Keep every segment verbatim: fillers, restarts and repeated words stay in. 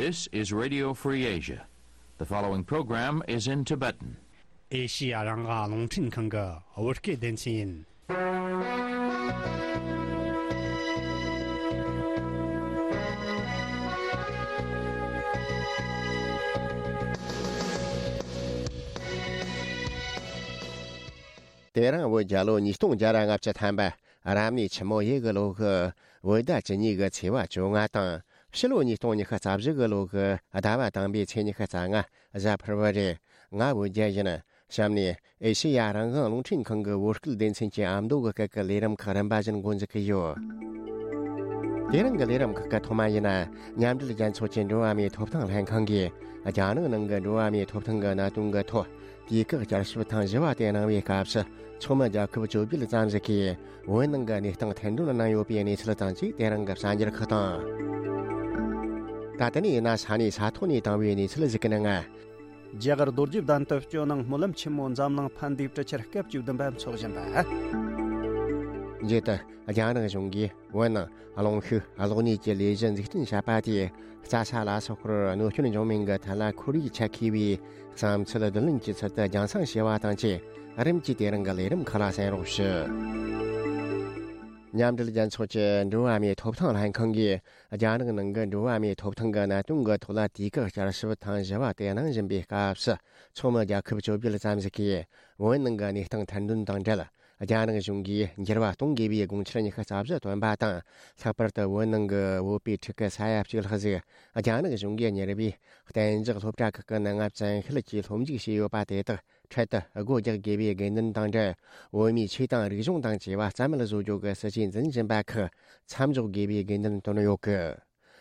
This is Radio Free Asia. The following program is in Tibetan. ཨེ་ཤི་ཡ་རང་དབང་རླུང་འཕྲིན་ཁང་གི་བོད་སྐད་སྡེ་ཚན་ཡིན། དེ་རིང་བོད་རྒྱལ་ལོ་ཉིས་སྟོང་བརྒྱ་ར་ལྔ་བཅུ་ཐམ་པ། རབ་གནས་ཆུ་མོ་ཡོས་གི་ལོ་གི་བོད་ཟླ་བཅུ་གཉིས་གི་ཚེས་པ་བཅོ་ལྔ་དང་། ཕྱི་ལོ་ཉིས་སྟོང་ཉི་ཤུ་རྩ་བཞི་གི་ལོ་གི་ཟླ་བ་དང་པོའི་ཚེས་ཉི་ཤུ་རྩ་ལྔ། གཟའ་ཕུར་བུ་རེད། ང་བོད་རྒྱལ་ཡིན། གཤམ་ནས་ཨེ་ཤེ་ཡ་རང་དབང་རླུང་འཕྲིན་ཁང་གི་བོད་སྐད་སྡེ་ཚན་གྱི་ཨ་མདོ་གི་སྐད་ཀྱི་ལས་རིམ་ཁག་རིམ་པ་བཞིན་འགོ་འཛུགས་ཀྱི་ཡོད། དེ་རིང་གི་ལས་རིམ་ཁག་གི་ཐོག་མ་ཡིན་ན། མཉམ་འབྲེལ་རྒྱལ་ཚོགས་ཀྱི་འགྲོ་བ་མིའི་ཐོབ་ཐང་ལྷན་ཁང་གིས་རྒྱ་ནག་ནང་གི་འགྲོ་བ་མིའི་ཐོབ་ཐང་གི་གནད་དོན་གྱི་ཐོག་དུས་བཀག་བསྐྱར་ཞིབ་ཐེངས་བཞི་བ་དེ་གནང་བའི་སྐབས་སུ། ཚོགས་མི་རྒྱལ་ཁབ་བཅོ་བརྒྱད་ཙམ་ཞིག་གིས་བོད་ནང་གི་གནས་སྟངས་ཐེར་འདོན་གནང་ཡོད་པའི་གནས་ཚུལ་དང་བཅས་དེ་རིང་གི་གསར་འགྱུར་ཁག་དང་། ད་ལྟ་ནས་ཡིན་ན་ས་གནས་ས་ཐོག་ནས་བཏང་བའི་གནས་ཚུལ་ཞིག་གི་ནང་། རྒྱ་གར་རྡོ་རྗེ་གདན་དུ་སྤྱི་ནང་སྨོན་ལམ་ཆེན་མོ་འཛམ་གླིང་ཕན་བདེའི་གྲུ་ཆར་སྐབས་བཅུ་བདུན་པ་འཚོགས་བཞིན་པ། མཇུག་ཏུ་རྒྱ་ནག་གཞུང་གིས་བོད་ནང་རླུང་ཤུགས་གློག་ནུས་ཀྱི་ལས་གཞི་འཛུགས་སྐྲུན་བྱས་པ་དེས་རྩྭ་ས་ལ་སོགས་པར་གནོད་སྐྱོན་འབྱུང་མིན་གྱི་ཐད་ལ་ཁོར་ཡུག་ཆ་མཁས་པའི་བསམ་ཚུལ་བསྡུ་ལེན་གྱི་ཚུལ་དུ་རྒྱང་སྲིང་བྱས་པ་དང་བཅས། རིམ་གྱིས་དེ་རིང་གི་ལས་རིམ་ཁག་ལ་གསན་རོགས་ཞུ། མཉམ་འབྲེལ་རྒྱལ་ཚོགས་ཀྱི་འགྲོ་བ་མིའི་ཐོབ་ཐང་ལྷན་ཁང་གིས་རྒྱ་ནག་ནང་གི་འགྲོ་བ་མིའི་ཐོབ་ཐང་གི་གནད་དོན་གྱི་ཐོག་ལ་དུས་བཀག་བསྐྱར་ཞིབ་ཐེངས་བཞི་བ་དེ་གནང་བཞིན་པའི་སྐབས་སུ། ཚོགས་མི་རྒྱལ་ཁབ་བཅོ་བརྒྱད་ཙམ་ཞིག་གིས་བོད་ནང་གི་གནས་སྟངས་ཐེར་འདོན་དང་འབྲེལ། རྒྱ་ནག་གཞུང་གིས་འགྱུར་བ་གཏོང་དགོས་པའི་དགོངས་འཆར་ཉི་ཤུ་རྩ་བཞི་བཏོན་པ་དང་། ལྷག་པར་དུ་བོད་ནང་གི་བོད་པའི་ཕྲུ་གུ་ས་ཡ་གཅིག་ལྷག་ཞིག་རྒྱ་ནག་གཞུང་གིས་གཉེར་བའི་གཏན་འཇགས་སློབ་གྲྭ་ཁག་གི་ནང་བཙན་ཤེད་ཀྱིས་སློབ་འཇུག་བྱས་ཡོད་པ་དེ་དག་འཕྲལ་དུ་སྒོ་རྒྱག་དགོས་པའི་དགོས་འདུན་དང་འབྲེལ། བོད་མིའི་ཆོས་དང་རིག་གཞུང་དང་བཅས་པ་རྩ་མེད་བཟོ་རྒྱུ་གི་སྲིད་ཇུས་འཛིན་བཞིན་པ་ཁག་མཚམས་འཇོག་དགོས་པའི་དགོས་འདུན་བཏོན་ཡོད་གི།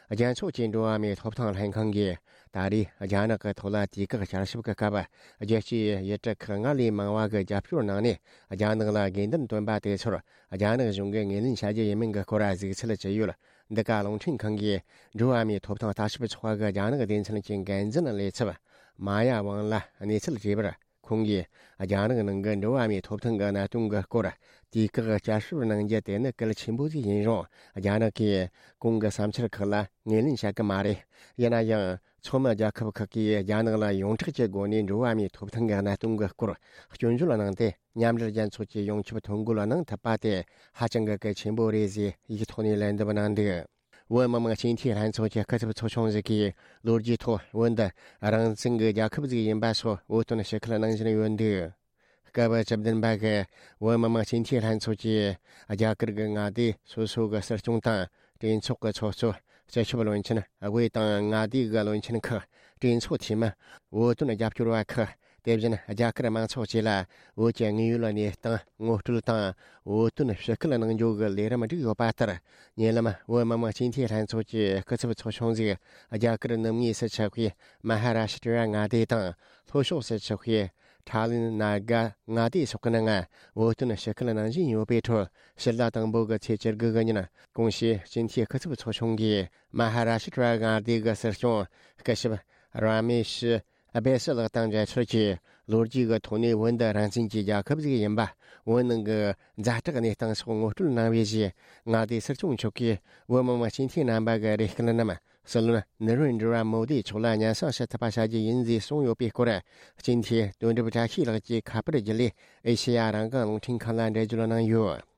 རྒྱལ་ཚོགས་ཀྱི་འགྲོ་བ་མིའི་ཐོབ་ཐང་ལྷན་ཁང་གིས་ད་རེས་རྒྱ་ནག་གི་ཐོག་ལ་དུས་བཀག་བསྐྱར་ཞིབ་ཀྱི་སྐབས། རྒྱལ་སྤྱིའི་ཡུལ་གྲུ་ཁག་སྔར་ལས་མང་བ་གི་རྒྱབ་སྐྱོར་གནང་ནས། རྒྱ་ནག་ལ་དགོས་འདུན་བཏོན་པ་དེ་ཚོར་རྒྱ་ནག་གཞུང་གིས་ངོས་ལེན་བྱ་རྒྱུ་ཡིན་མིན་གྱི་སྐོར་གཟིགས་ཚུལ་ཅི་ཡོད། འདི་ག་རླུང་འཕྲིན་ཁང་གིས་འགྲོ་བ་མིའི་ཐོབ་ཐང་ལྟ་ཞིབ་ཚོགས་པ་གི་རྒྱ་ནག་སྡེ་ཚན་གྱི་འགན་འཛིན་ལས་ཚབ་མ་ཡ་ཝང་ལ་གནས་ཚུལ་དྲིས་པར། ཁོང་གིས་རྒྱ་ནག་ནང་གི་འགྲོ་བ་མིའི་ཐོབ་ཐང་གི་གནད་དོན་གྱི་སྐོར་དུས་བཀག་བསྐྱར་ཞིབ་གནང་རྒྱུ་དེ་ནི་གལ་ཆེན་པོ་ཞིག་ཡིན་རུང་། རྒྱ་ནག་གིས་ཁོང་གི་བསམ་འཆར་ཁག་ལ་ངོས་ལེན་བྱ་གི་མ་རེད། ཡིན་ན་ཡང་། ཚོགས་མི་རྒྱལ་ཁབ་ཁག་གིས་རྒྱ་ནག་ལ་ཡོངས་གྲགས་ཀྱི་སྒོ་ནས་འགྲོ་བ་མིའི་ཐོབ་ཐང་གི་གནད་དོན་གྱི་སྐོར་སྐྱོན་བརྗོད་གནང་སྟེ། མཉམ་འབྲེལ་རྒྱལ་ཚོགས་ཀྱི་ཡོངས་ཁྱབ་ཐོ་འགོད་གནང་ཐུབ་པ་དེ་ཧ་ཅང་གི་གལ་ཆེན་པོ་རེད་ཟེར་ཡིག་ཐོག་ནས་ལན་འདེབས་གནང་འདུག། བོད་མི་མང་སྤྱི་འཐུས་ལྷན་ཚོགས་ཀྱི་སྐུ་ཚབ་ཚོགས་ཆུང་ཞིག་གིས་ལོ་རྒྱུས་ཐོག་བོད་འདི་རང་བཙན་གྱི་རྒྱལ་ཁབ་ཞིག་ཡིན་པ་སོགས་འུད་བསྟན་ཞུ་ཁུལ་གནང་བཞིན་ཡོད་འདུག། སྐབས་བཅུ་བདུན་པ་གི་བོད་མི་མང་སྤྱི་འཐུས་ལྷན་ཚོགས་ཀྱིས་རྒྱ་གར་གྱི་མངའ་སྡེ་སོ་སོ་གི་སྲིད་སྐྱོང་དང་གྲོས་ཚོགས་ཀྱི་ཚོགས་གཙོ། སྤྱི་ཁྱབ་བློན་ཆེན། དབུས་དང་མངའ་སྡེ་གི་བློན་ཆེན་ཁག་གྲོས་ཚོགས་འཐུས་མི། བོད་དོན་རྒྱབ་སྐྱོར་བ་ཁག་དེ་བཞིན་རྒྱ་གར་མང་ཚོགས་བཅས་ལ་བོད་ཀྱི་དངོས་ཡོད་གནས་སྟངས་ངོ་སྤྲོད་དང་། བོད་དོན་ཞུ་སྐུལ་གནང་རྒྱུ་གི་ལས་རིམ་བསྒྲིགས་ཡོད་པ་ལྟར། ཉེ་ལམ་བོད་མི་མང་སྤྱི་འཐུས་ལྷན་ཚོགས་ཀྱི་སྐུ་ཚབ་ཚོགས་ཆུང་ཞིག་རྒྱ་གར་ནུབ་ངོས་སུ་ཆགས་པའི་མ་ཧ་ར་ཤི་ཏྲ་མངའ་སྡེ་དང་། ལྷོ་ཕྱོགས་སུ་ཆགས་པའི་ཁྲ་ལིན་ན་ག་མངའ་སྡེ་སོགས་ཀྱི་ནང་བོད་དོན་ཞུ་སྐུལ་གནང་བཞིན་ཡོད་པའི་ཁྲོད། ཕྱི་ཟླ་དང་པོ་གི་ཚེས་བཅུ་དགུ་གི་ཉིན། གོང་ཞུས་སྤྱི་འཐུས་སྐུ་ཚབ་ཚོགས་ཆུང་གིས་མ་ཧ་ར་ཤི་ཏྲ་མངའ་སྡེ་གི་སྲིད་སྐྱོང་སྐུ་ཞབས་ར་མེ་ཤི་ཨ་བེ་སི་ལགས་དང་མཇལ་འཕྲད་ཀྱིས། ལོ་རྒྱུས་ཀྱི་ཐོག་ནས་བོད་འདི་རང་བཙན་གྱི་རྒྱལ་ཁབ་ཞིག་ཡིན་པ། བོད་ནང་གི་ཛ་དྲག་གནས་སྟངས་སོགས་ངོ་སྤྲོད་གནང་བའི་རྗེས། མངའ་སྡེའི་སྲིད་སྐྱོང་མཆོག་གིས་བོད་མི་མང་སྤྱི་འཐུས་རྣམ་པ་གི་རེ་སྐུལ་རྣམས། སྲིད་བློན་ནི་རེན་དྲི་བ་མོ་དིའི་མཆོག་ལ་སྙན་སེང་ཞུ་ཐུབ་པ་བྱ་རྒྱུ་ཡིན་ཞེས་གསུངས་ཡོད་པའི་སྐོར། སྤྱི་འཐུས་དོན་གྲུབ་བཀྲ་ཤིས་ལགས་ཀྱིས་ཁ་པར་བརྒྱུད་ལས་ཨེ་ཤེ་ཡ་རང་དབང་རླུང་འཕྲིན་ཁང་ལ་འགྲེལ་བརྗོད་གནང་ཡོད།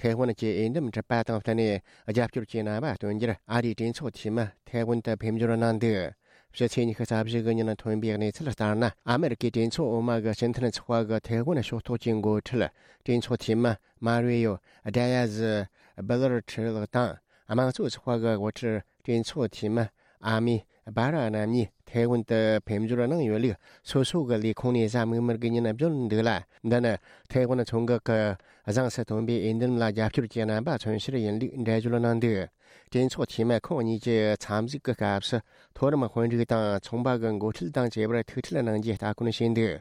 ཐའེ་ཝན་གྱི་འོས་འདེམས་གྲུབ་པ་དང་བསྟུན་ནས། རྒྱབ་སྐྱོར་གྱི་རྣམ་པ་སྟོན་རྒྱུར་ཨ་རིའི་གྲོས་ཚོགས་འཐུས་མི་ཐའེ་ཝན་དུ་ཕེབས་འབྱོར་གནང་འདུག། ཕྱི་ཚེས་ཉི་ཤུ་རྩ་བཞི་གི་ཉིན་ཐོན་པའི་གནས་ཚུལ་ལྟར་ན། ཨ་མེ་རི་ཀའི་གྲོས་ཚོགས་འོག་མ་གི་སྤྱི་མཐུན་ཚོགས་པ་གི་ཐའེ་ཝན་ཕྱོགས་གཏོགས་ཀྱི་འགོ་ཁྲིད་གྲོས་ཚོགས་འཐུས་མི་མ་རུ་ཡོ་ཌ་ཡ་ཟི་སྦི་ལར་ཁྲི་ལགས་དང་། དམངས་གཙོ་ཚོགས་པ་གི་འགོ་ཁྲིད་གྲོས་ཚོགས་འཐུས་མི་ཨ་མི་སྦ་ར་རྣམ་གཉིས་ཐའེ་ཝན་དུ་ཕེབས་འབྱོར་གནང་ཡོད་ལུགས། སོ་སོ་གི་ལས་ཁུངས་ནས་གཟའ་མིག་དམར་གྱི་ཉིན་བརྗོད་འདུག་ལ། འདི་ནི་ཐའེ་ཝན་མཚོ་འགག་གི་གཟེངས་སུ་ཐོན་པའི་འོས་འདེམས་ལ་རྒྱབ་སྐྱོར་གྱི་རྣམ་པ་མཚོན་ཕྱིར་ཡིན་ལུགས་འགྲེལ་བརྗོད་གནང་འདུག། གྲོས་ཚོགས་འཐུས་མི་ཁོང་གཉིས་ཀྱི་འཚམས་གཟིགས་ཀྱི་སྐབས་སུ། མཐོ་རིམ་དཔོན་རིགས་དང་ཚོང་པ་གི་འགོ་ཁྲིད་དང་བཅས་པར་ཐུག་འཕྲད་གནང་རྒྱུའི་ལྟ་སྐོར་བྱས་འདུག།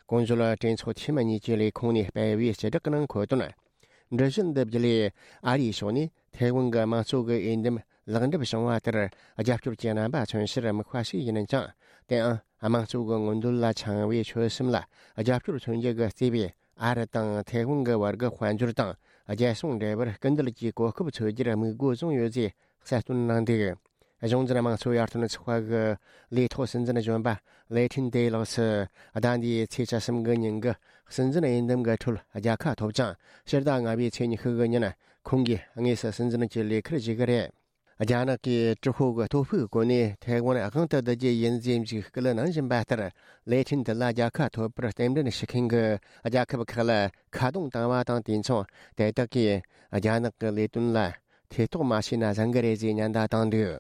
གོང་བརྗོད་གྲོས་ཚོགས་འཐུས་མི་གཉིས་ཀྱི་ལས་ཁུངས་ནས་སྤེལ་བའི་སྤྱི་བསྒྲགས་ནང་འཁོད་དོན། འགྲུལ་བཞུད་འདི་བརྒྱུད་ལས་ཨ་རིའི་ཕྱོགས་ནས་ཐའེ་ཝན་གྱི་དམངས་གཙོ་གི་འོས་འདེམས་ལེགས་འགྲུབ་བྱུང་བ་ལྟར་རྒྱབ་སྐྱོར་གྱི་རྣམ་པ་མཚོན་ཕྱིར་དམིགས་པ་ཞིག་ཡིན་ཀྱང་། དེའང་དམངས་གཙོ་གི་མངོན་འདོད་ལ་འཆང་བའི་ཆོད་སེམས་ལ་རྒྱབ་སྐྱོར་མཚོན་རྒྱུ་གི་བརྩེ་བས་ ཨ་རི་དང་ཐའེ་ཝན་གྱི་བར་གྱི་དཔལ་འབྱོར་དང་རྒྱལ་སྲུང་འབྲེལ་བར་སྐུལ་འདེད་ཀྱི་གོ་སྐབས་འཚོལ་རྒྱུར་དམིགས་འགོ་བཟུང་ཡོད་ཅེས་གསལ་སྟོན་གནང་འདུག། གཞུང་འཛིན་དམངས་གཙོ་ཡར་ཐོན་ཚོགས་པ་གི་ལས་ཐོག་སྲིད་འཛིན་གཞོན་པ་ལེ་ཁྲིན་ཏེ་ལགས་སུ། ཟླ་འདིའི་ཚེས་བཅུ་གསུམ་གི་ཉིན་གྱི་སྲིད་འཛིན་འོས་འདེམས་ཀྱི་ཁྲོད་རྒྱལ་ཁ་ཐོབ་ཅིང་། ཕྱི་ཟླ་ལྔ་པའི་ཚེས་ཉི་ཤུ་གི་ཉིན་ཁོང་གིས་དངོས་སུ་སྲིད་འཛིན་གྱི་ལས་ཁུར་བཞེས་ཀྱི་རེད། རྒྱ་ནག་གིས་ཀྲུང་ཧྭ་གི་སྟོབས་ཤུགས་བཀོལ་ནས་ཐའེ་ཝན་དབང་དུ་བསྡུ་རྒྱུ་ཡིན་ཟེར་འཇིགས་སྐུལ་གནང་བཞིན་པ་ལྟར། ལེ་ཁྲིན་ཏེ་ལ་རྒྱལ་ཁ་ཐོབ་པར་རྟེན་འབྲེལ་ཞུ་མཁན་གྱི་རྒྱལ་ཁབ་ཁག་ལ་ཁ་རྡུང་བཏང་བ་དང་། དུས་མཚུངས་དེ་དག་གིས་རྒྱ་ནག་གི་ལས་དོན་ལ་ཐེ་གཏོགས་མ་བྱས་ན་བཟང་གི་རེད་ཅེས་ཉེན་བརྡ་བཏང་འདུག།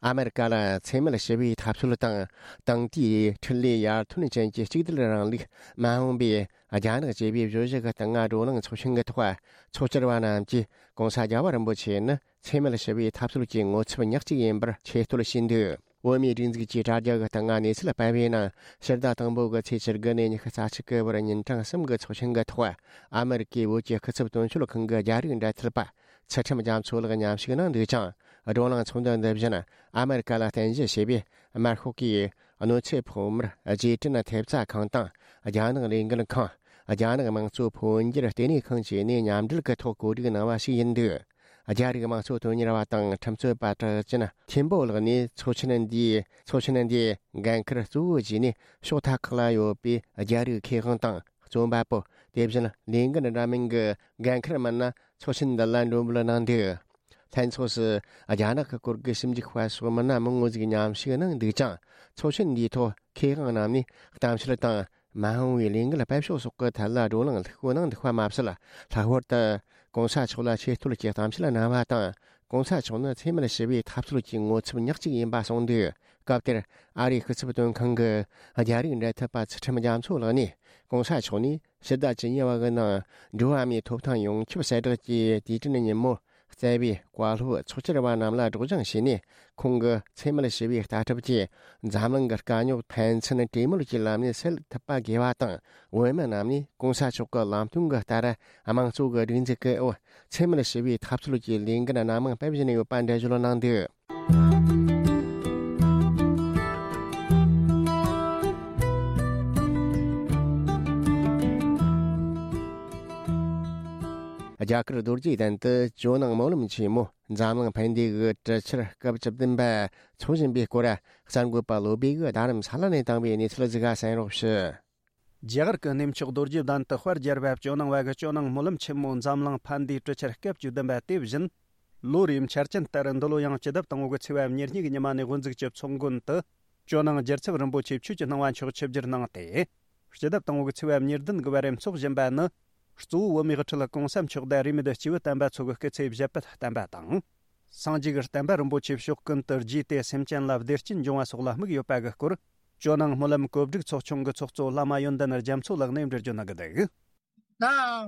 ཨ་མེ་རི་ཀ་ལ་འཚེ་མེད་ཞི་བའི་འཐབ་རྩོད་དང་། དེང་དུས་འཕྲིན་ལས་ཡར་ཐོན་ཅན་གྱི་གཅིག་སྡུད་རིང་ལུགས་མ་འོངས་པའི་རྒྱ་ནག་ཅེས་པའི་བརྗོད་གཞི་གི་སྟེང་བགྲོ་གླེང་ཚོགས་ཆེན་གྱི་ཐོག་ཚོགས་བཅར་བ་རྣམས་ཀྱིས་༸གོང་ས་༸རྒྱལ་བ་རིན་པོ་ཆེ་ནི་འཚེ་མེད་ཞི་བའི་འཐབ་རྩོད་ཀྱི་ངོ་ཚབ་ཉག་གཅིག་ཡིན་པར་ཆེ་བསྟོད་བྱས་འདུག། བོད་མིའི་སྒྲིག་འཛུགས་ཀྱི་དྲ་རྒྱ་གི་སྟེང་གནས་ཚུལ་སྤེལ་བའི་ནང་། ཕྱི་ཟླ་དང་པོ་གི་ཚེས་བཅུ་དགུ་ནས་ཉི་ཤུ་རྩ་གཅིག་གི་བར་ཉིན་གྲངས་གསུམ་གྱི་ཚོགས་ཆེན་གྱི་ཐོག་ཨ་མེ་རི་ཀའི་བོད་ཀྱི་སྐུ་ཚབ་དོན་གཅོད་ཁང་གི་རྒྱ་རིགས་འབྲེལ་མཐུད་པ་ཚུལ་ཁྲིམས་རྒྱ་མཚོ་ལགས་མཉམ་ཞུགས་གནང་འདུག་ཅིང་། བགྲོ་གླེང་ཚོགས་འདུ་འདི་བཞིན་ཨ་མེ་རི་ཀ་ལ་རྟེན་གཞི་བྱས་པའི་དམར་ཤོག་གིས་གནོད་འཚེ་ཕོག་མིར་རྗེས་དྲན་ཐེབས་རྩ་ཁང་དང་། རྒྱ་ནག་ལས་འགུལ་ཁང་། རྒྱ་ནག་དམངས་གཙོ་འཕོ་འགྱུར་ལྟེ་གནས་ཁང་བཅས་ནས་མཉམ་འབྲེལ་གྱི་ཐོག་གོ་སྒྲིག་གནང་བ་ཞིག་ཡིན་འདུག། རྒྱ་རིགས་དམངས་གཙོ་དོན་གཉེར་བ་དང་ཁྲིམས་རྩོད་པ་གྲགས་ཅན་ཐེན་པོ་ལགས་ནས་ཚོགས་ཆེན་འདིའི་ཚོགས་ཆེན་འདིའི་འགན་འཁུར་གཙོ་བོ་བྱས་ནས། ཕྱོགས་མཐའ་ཁག་ལ་ཡོད་པའི་རྒྱ་རིགས་མཁས་དབང་དང་རྩོམ་པ་པོ། དེ་བཞིན་ལས་འགུལ་འདྲ་མིན་གྱི་འགན་འཁུར་མི་སྣ་ཚོགས་ཆེན་འདི་ལ་མགྲོན་འབོད་གནང་འདུག། ལྷན་ཚོགས་སུ་རྒྱ་ནག་གི་སྐོར་གྱི་ཞིབ་འཇུག་པ་སོགས་མི་སྣ་མང་བོ་ཞིག་མཉམ་ཞུགས་གནང་འདུག་ཅིང་། ཚོགས་ཆེན་འདིའི་ཐོག་མཁས་དབང་རྣམས་ནས་གཏམ་བཤད་དང་། མ་འོངས་པའི་ལས་འགུལ་སྤེལ་ཕྱོགས་སོགས་ཀྱི་ཐད་ལ་བགྲོ་གླེང་ལྷུག་པོ་གནང་འདུག་པ་མ་ཟད། ལྷག་པར་དུ་༸གོང་ས་མཆོག་ལ་ཆེ་བསྟོད་ཀྱི་གཏམ་བཤད་གནང་བ་དང་། ༸གོང་ས་མཆོག་ནི་འཚེ་མེད་ཞི་བའི་འཐབ་རྩོད་ཀྱི་ངོ་ཚབ་ཉག་གཅིག་ཡིན་པ་གསུངས་འདུག། སྐབས་དེར་ཨ་རིའི་སྐུ་ཚབ་དོན་ཁང་གི་རྒྱ་རིགས་འབྲེལ་མཐུད་པ་ཚུལ་ཁྲིམས་རྒྱ་མཚོ་ལགས་ནས། ༸གོང་ས་མཆོག་ནས་ཕྱི་ཟླ་བཅུ་གཉིས་པ་གི་ནང་འགྲོ་བ་མིའི་ཐོབ་ཐང་ཡོངས་ཁྱབ་གསལ་བསྒྲགས་ཀྱི་དུས་དྲན་ཉིན་མོར་བསྩལ་བའི་བཀའ་སློབ་ཚོགས་བཅར་བ་རྣམས་ལ་སྒྲོག་སྦྱང་བྱས་ནས། ཁོང་གི་འཚེ་མེད་ཞི་བའི་ལྟ་གྲུབ་ཀྱིས་འཛམ་གླིང་གི་དཀའ་རྙོག་ཕན་ཚུན་གྲོས་མོལ་གྱི་ལམ་ནས་སེལ་ཐུབ་པ་དགོས་པ་དང་། བོད་མི་རྣམས་ནས་༸གོང་ས་མཆོག་གི་ལམ་སྟོན་གྱི་ལྟར་དམངས་གཙོ་གི་སྒྲིག་འཛུགས་ཀྱི་འོག་འཚེ་མེད་ཞི་བའི་འཐབ་རྩོད་ཀྱི་ལས་འགན་སྣ་མང་སྤེལ་བཞིན་ཡོད་པ་འགྲེལ་བརྗོད་གནང་འདུག། རྒྱ་གར་རྡོ་རྗེ་གདན་དུ་ཇོ་ནང་སྨོན་ལམ་ཆེན་མོ་འཛམ་གླིང་ཕན་བདེ་གི་གྲུ་ཆར་སྐབས་བཅུ་བདུན་པ་འཚོགས་བཞིན་པའི་སྐོར། གསར་འགོད་པ་བློ་བྷེ་གིས་རྡ་རམ་ས་ལ་ནས་བཏང་བའི་གནས་ཚུལ་ཟིག་ག་གསན་རོགས་ཞུ། རྒྱ་གར་གྱི་གནས་མཆོག་རྡོ་རྗེ་གདན་དུ་དཔལ་རྒྱལ་བ་ཇོ་ནང་བ་གི་ཇོ་ནང་སྨོན་ལམ་ཆེན་མོ་འཛམ་གླིང་ཕན་བདེའི་གྲུ་ཆར་སྐབས་བཅུ་བདུན་པ་དེ་བཞིན། ལོ་རེའི་འཆར་ཅན་ལྟར་འདི་ལོ་ཡང་སྤྱི་ཟླ་དང་པོ་གི་ཚེས་པ་ཉེར་གཉིས་ཀྱི་ཉི་མ་ནས་དབུ་འཛུགས་ཀྱི་ཚོགས་མགོན་དུ། ཇོ་ནང་རྒྱལ་ཚབ་རིན་པོ་ཆེ་ཆོས་ཀྱི་སྣང་བ་མཆོག་ཆིབས་བསྒྱུར་གནང་སྟེ། སྤྱི་ཟླ་དང་པོ་གི་ཚེས་པ་ཉེར་བདུན་གྱི་བར་འཚོགས་བཞིན་པ་ནི། གཙོ་བོ་བོད་མིའི་དབུ་ཁྲིད་གོང་ས་མཆོག་དང་རིས་མེད་སྐྱེས་བུ་དམ་པ་ཚོ་གི་སྐུ་ཚེ་ཞབས་པད་བརྟན་པ་དང་། སངས་རྒྱས་ཀྱི་བསྟན་པ་རིན་པོ་ཆེ་ཕྱོགས་ཀུན་ཏུ་རྒྱས་ཏེ་སེམས་ཅན་ལ་བདེ་སྐྱིད་འབྱུང་བ་སོགས་ལ་དམིགས་ཡོད་པ་གི་སྐོར། ཇོ་ནང་སྨོན་ལམ་གོ་སྒྲིག་ཚོགས་ཆུང་གི་ཚོགས་གཙོ་བླ་མ་ཡོན་ཏན་རྒྱ་མཚོ་ལགས་ནས་འགྲེལ་བརྗོད་གནང་གི་འདུག། ད་